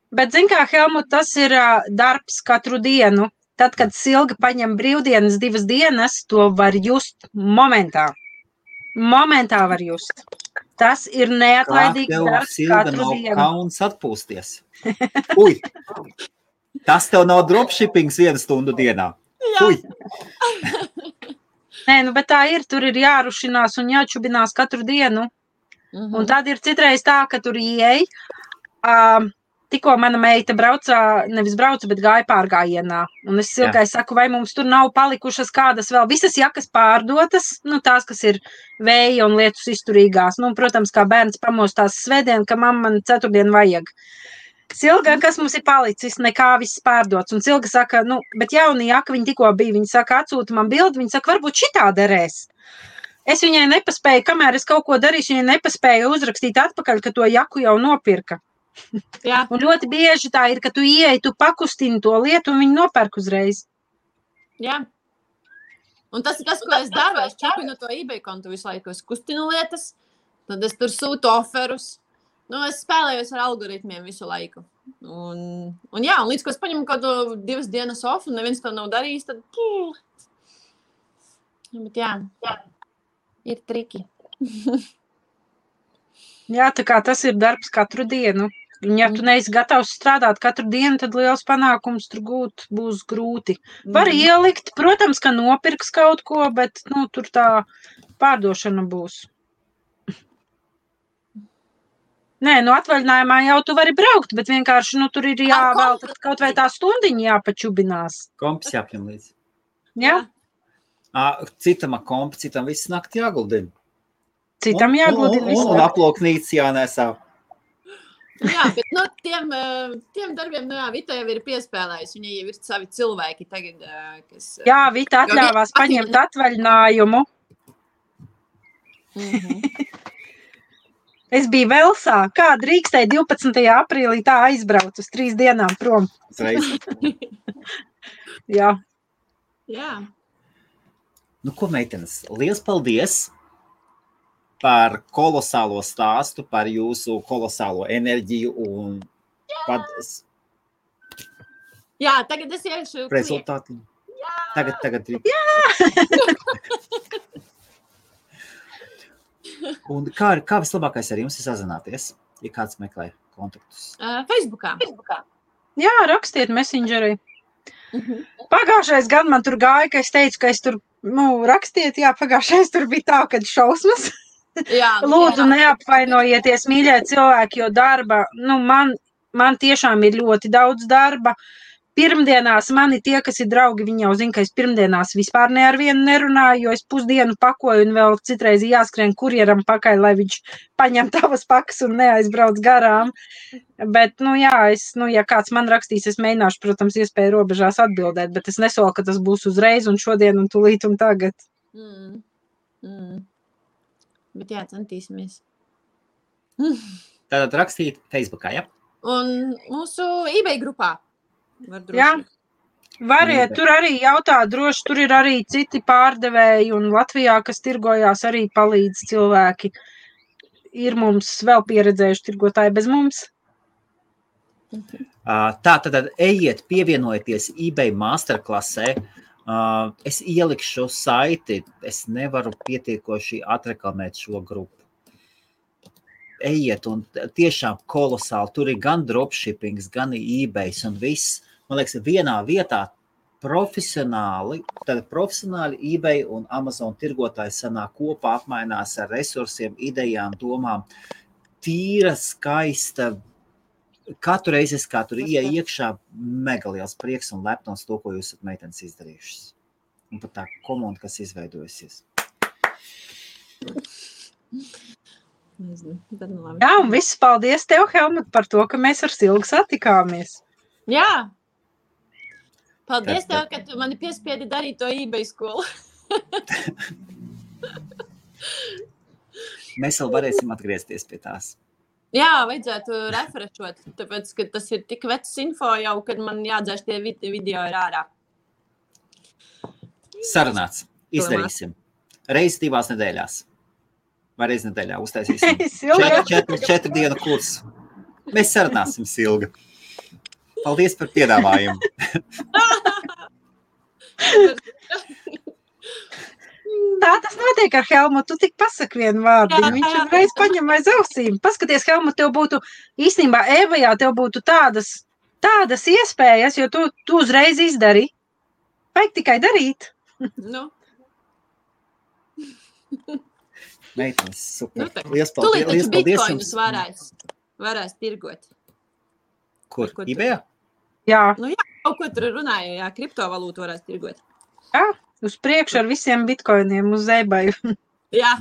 Bet, zin kā, Helmut, tas ir darbs katru dienu. Tad, kad Silga paņem brīvdienas 2 dienas, to var just momentā. Momentā var just. Tas ir neatlaidīgs darbs katru dienu. Kā tev, Silga, nav kauns atpūsties? Uj! Tas tev nav dropshippings 1 stundu dienā. Uj! Nē, bet tā ir. Tur ir jārušinās un jāčubinās katru dienu. Un tad ir citreiz tā, ka tur ieej. Tikko mana meita nevis brauca, bet gāja pārgājienā. Un es Silgai saku, vai mums tur nav palikušas kādas vēl visas jakas pārdotas, tās, kas ir vēja un lietus izturīgās. Protams, kā bērns pamostās svētdien, ka mamma man ceturtdien vajag. Silga, kas mums ir palicis, nekā viss pārdots. Un Silga saka, bet jauni jaka viņa tikko bija. Viņa saka, atsūta man bildi, viņa saka, varbūt šitā derēs. Es viņai nepaspēju, kamēr es kaut ko darīšu, viņai nepaspēju uzrakstīt atpakaļ, ka to jaku jau nopirka. Jā. Un ļoti bieži tā ir, ka tu ieej, tu pakustini to lietu un viņi nopērk uzreiz. Jā. Un tas ir tas, ko es daru. Es čepinu to eBay kontu visu laiku. Es kustinu lietas, tad es tur sūtu oferus. Es spēlējos ar algoritmiem visu laiku. Un līdz, ko es paņemu kaut 2 dienas off un neviens to nav darījis, tad... Bet jā, ir triki. Jā, tā kā tas ir darbs katru dienu. Un ja tu neesi gatavs strādāt katru dienu, tad liels panākums tur gūt būs grūti. Var ielikt, protams, ka nopirks kaut ko, bet tur tā pārdošana būs. Nē, atvaļinājumā jau tu vari braukt, bet vienkārši tur ir jāvēl kaut vai tā stundiņa jāpačubinās. Kompis jāpņem līdzi. Jā? Citam kompi, citam viss nakti jāguldina. Citam jāguldina visu. Un aploknīts jānesā. Jā, bet tiem darbiem, Vita jau ir piespēlējusi. Viņa jau ir savi cilvēki tagad, kas... Jā, Vita atļāvās paņemt atvaļinājumu. Es biju Velsā. Kā drīkstēja 12. aprīlī tā aizbrauc uz 3 dienām prom? Jā. Jā. Ko, meitenes, liels paldies par kolosālo stāstu, par jūsu kolosālo enerģiju un Jā, tagad es iešu rezultāti. Tagad. Jā! Un kā vislabākais ar jums ir sazināties, ja kāds meklē kontaktus? Facebookā. Jā, rakstiet Messengerī. Pagājušais gan man tur gāja, ka es teicu, ka es tur, rakstiet, jā, pagājušais tur bija tā, kad šausmas. Lūdzu, neapvainojieties, mīļie cilvēki, jo darba, man tiešām ir ļoti daudz darba. Pirmdienās mani tie, kas ir draugi, viņi jau zina, ka es pirmdienās vispār ne ar vienu nerunāju, jo es pusdienu pakoju un vēl citreiz jāskrien kurjeram pakaļ, lai viņš paņem tavas pakas un neaizbrauc garām. Bet, ja kāds man rakstīs, es mēģināšu, protams, iespēju robežās atbildēt, bet es nesolu, ka tas būs uzreiz un šodien un tūlīt un tagad. Bet jā, centīsimies. Tātad rakstīt Facebookā, ja? Un mūsu eBay grupā var droši. Jā. Variet, tur arī jautā droši, tur ir arī citi pārdevēji un Latvijā, kas tirgojās, arī palīdz cilvēki. Ir mums vēl pieredzējuši tirgotāji bez mums. Tā tad ejiet, pievienojieties eBay masterklasē. Es ielikšu saiti, es nevaru pietiekoši atreklamēt šo grupu. Ejiet un tiešām kolosāli, tur ir gan dropshippings, gan eBays un viss. Man liekas, vienā vietā profesionāli eBay un Amazon tirgotāji sanāk kopā, apmainās ar resursiem, idejām, domām. Tīra, skaista, katru reizi es kā tur iekšā mega liels prieks un lepnums to, ko jūs esat meitenes izdarījušas. Un pat tā komanda, kas izveidojusies. Jā, un viss paldies tev, Helmut, par to, ka mēs ar Silgu satikāmies. Jā. Paldies tev, ka tu mani piespiedi darīt to eBay skolu. Mēs vēl varēsim atgriezties pie tās. Jā, vajadzētu refrešot, tāpēc, ka tas ir tik vecs info jau, kad man jādzēš tie video ir ārā. Sarunāts. Izdarīsim. Reiz 2 nedēļās. Vai reiz nedēļā uztaisīsim 4 dienu kursu. Mēs sarunāsim, Silga. Paldies par piedāvājumu. Tā tas notiek ar Helmutu. Tu tik pasaki vienu vārdu. Viņš reiz paņem aiz ausīm. Paskaties, Helmut, tev būtu īstenībā Evajā, tev būtu tādas iespējas, jo tu uzreiz izdari. Vajag tikai darīt. Nu. Meitenes, super. Nu, Liels paldies. Liels paldies jums. Varēs tirgot. Kur? eBayā? Jā. Nu jā, kaut ko tur runāja, jā, kriptovalūtu varēs tirgot. Jā, uz priekšu ar visiem bitkoiniem uz eBay. Jā.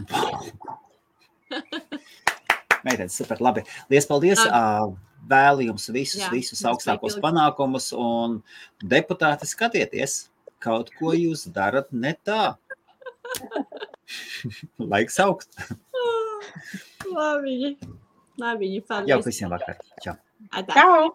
Meitenes, super, labi. Liels paldies. Vēlu jums visus augstākos panākumus un deputāti skatieties, kaut ko jūs darat ne tā. Laiks augt. Labi, paldies. Jau visiem vakar. Čau. Čau.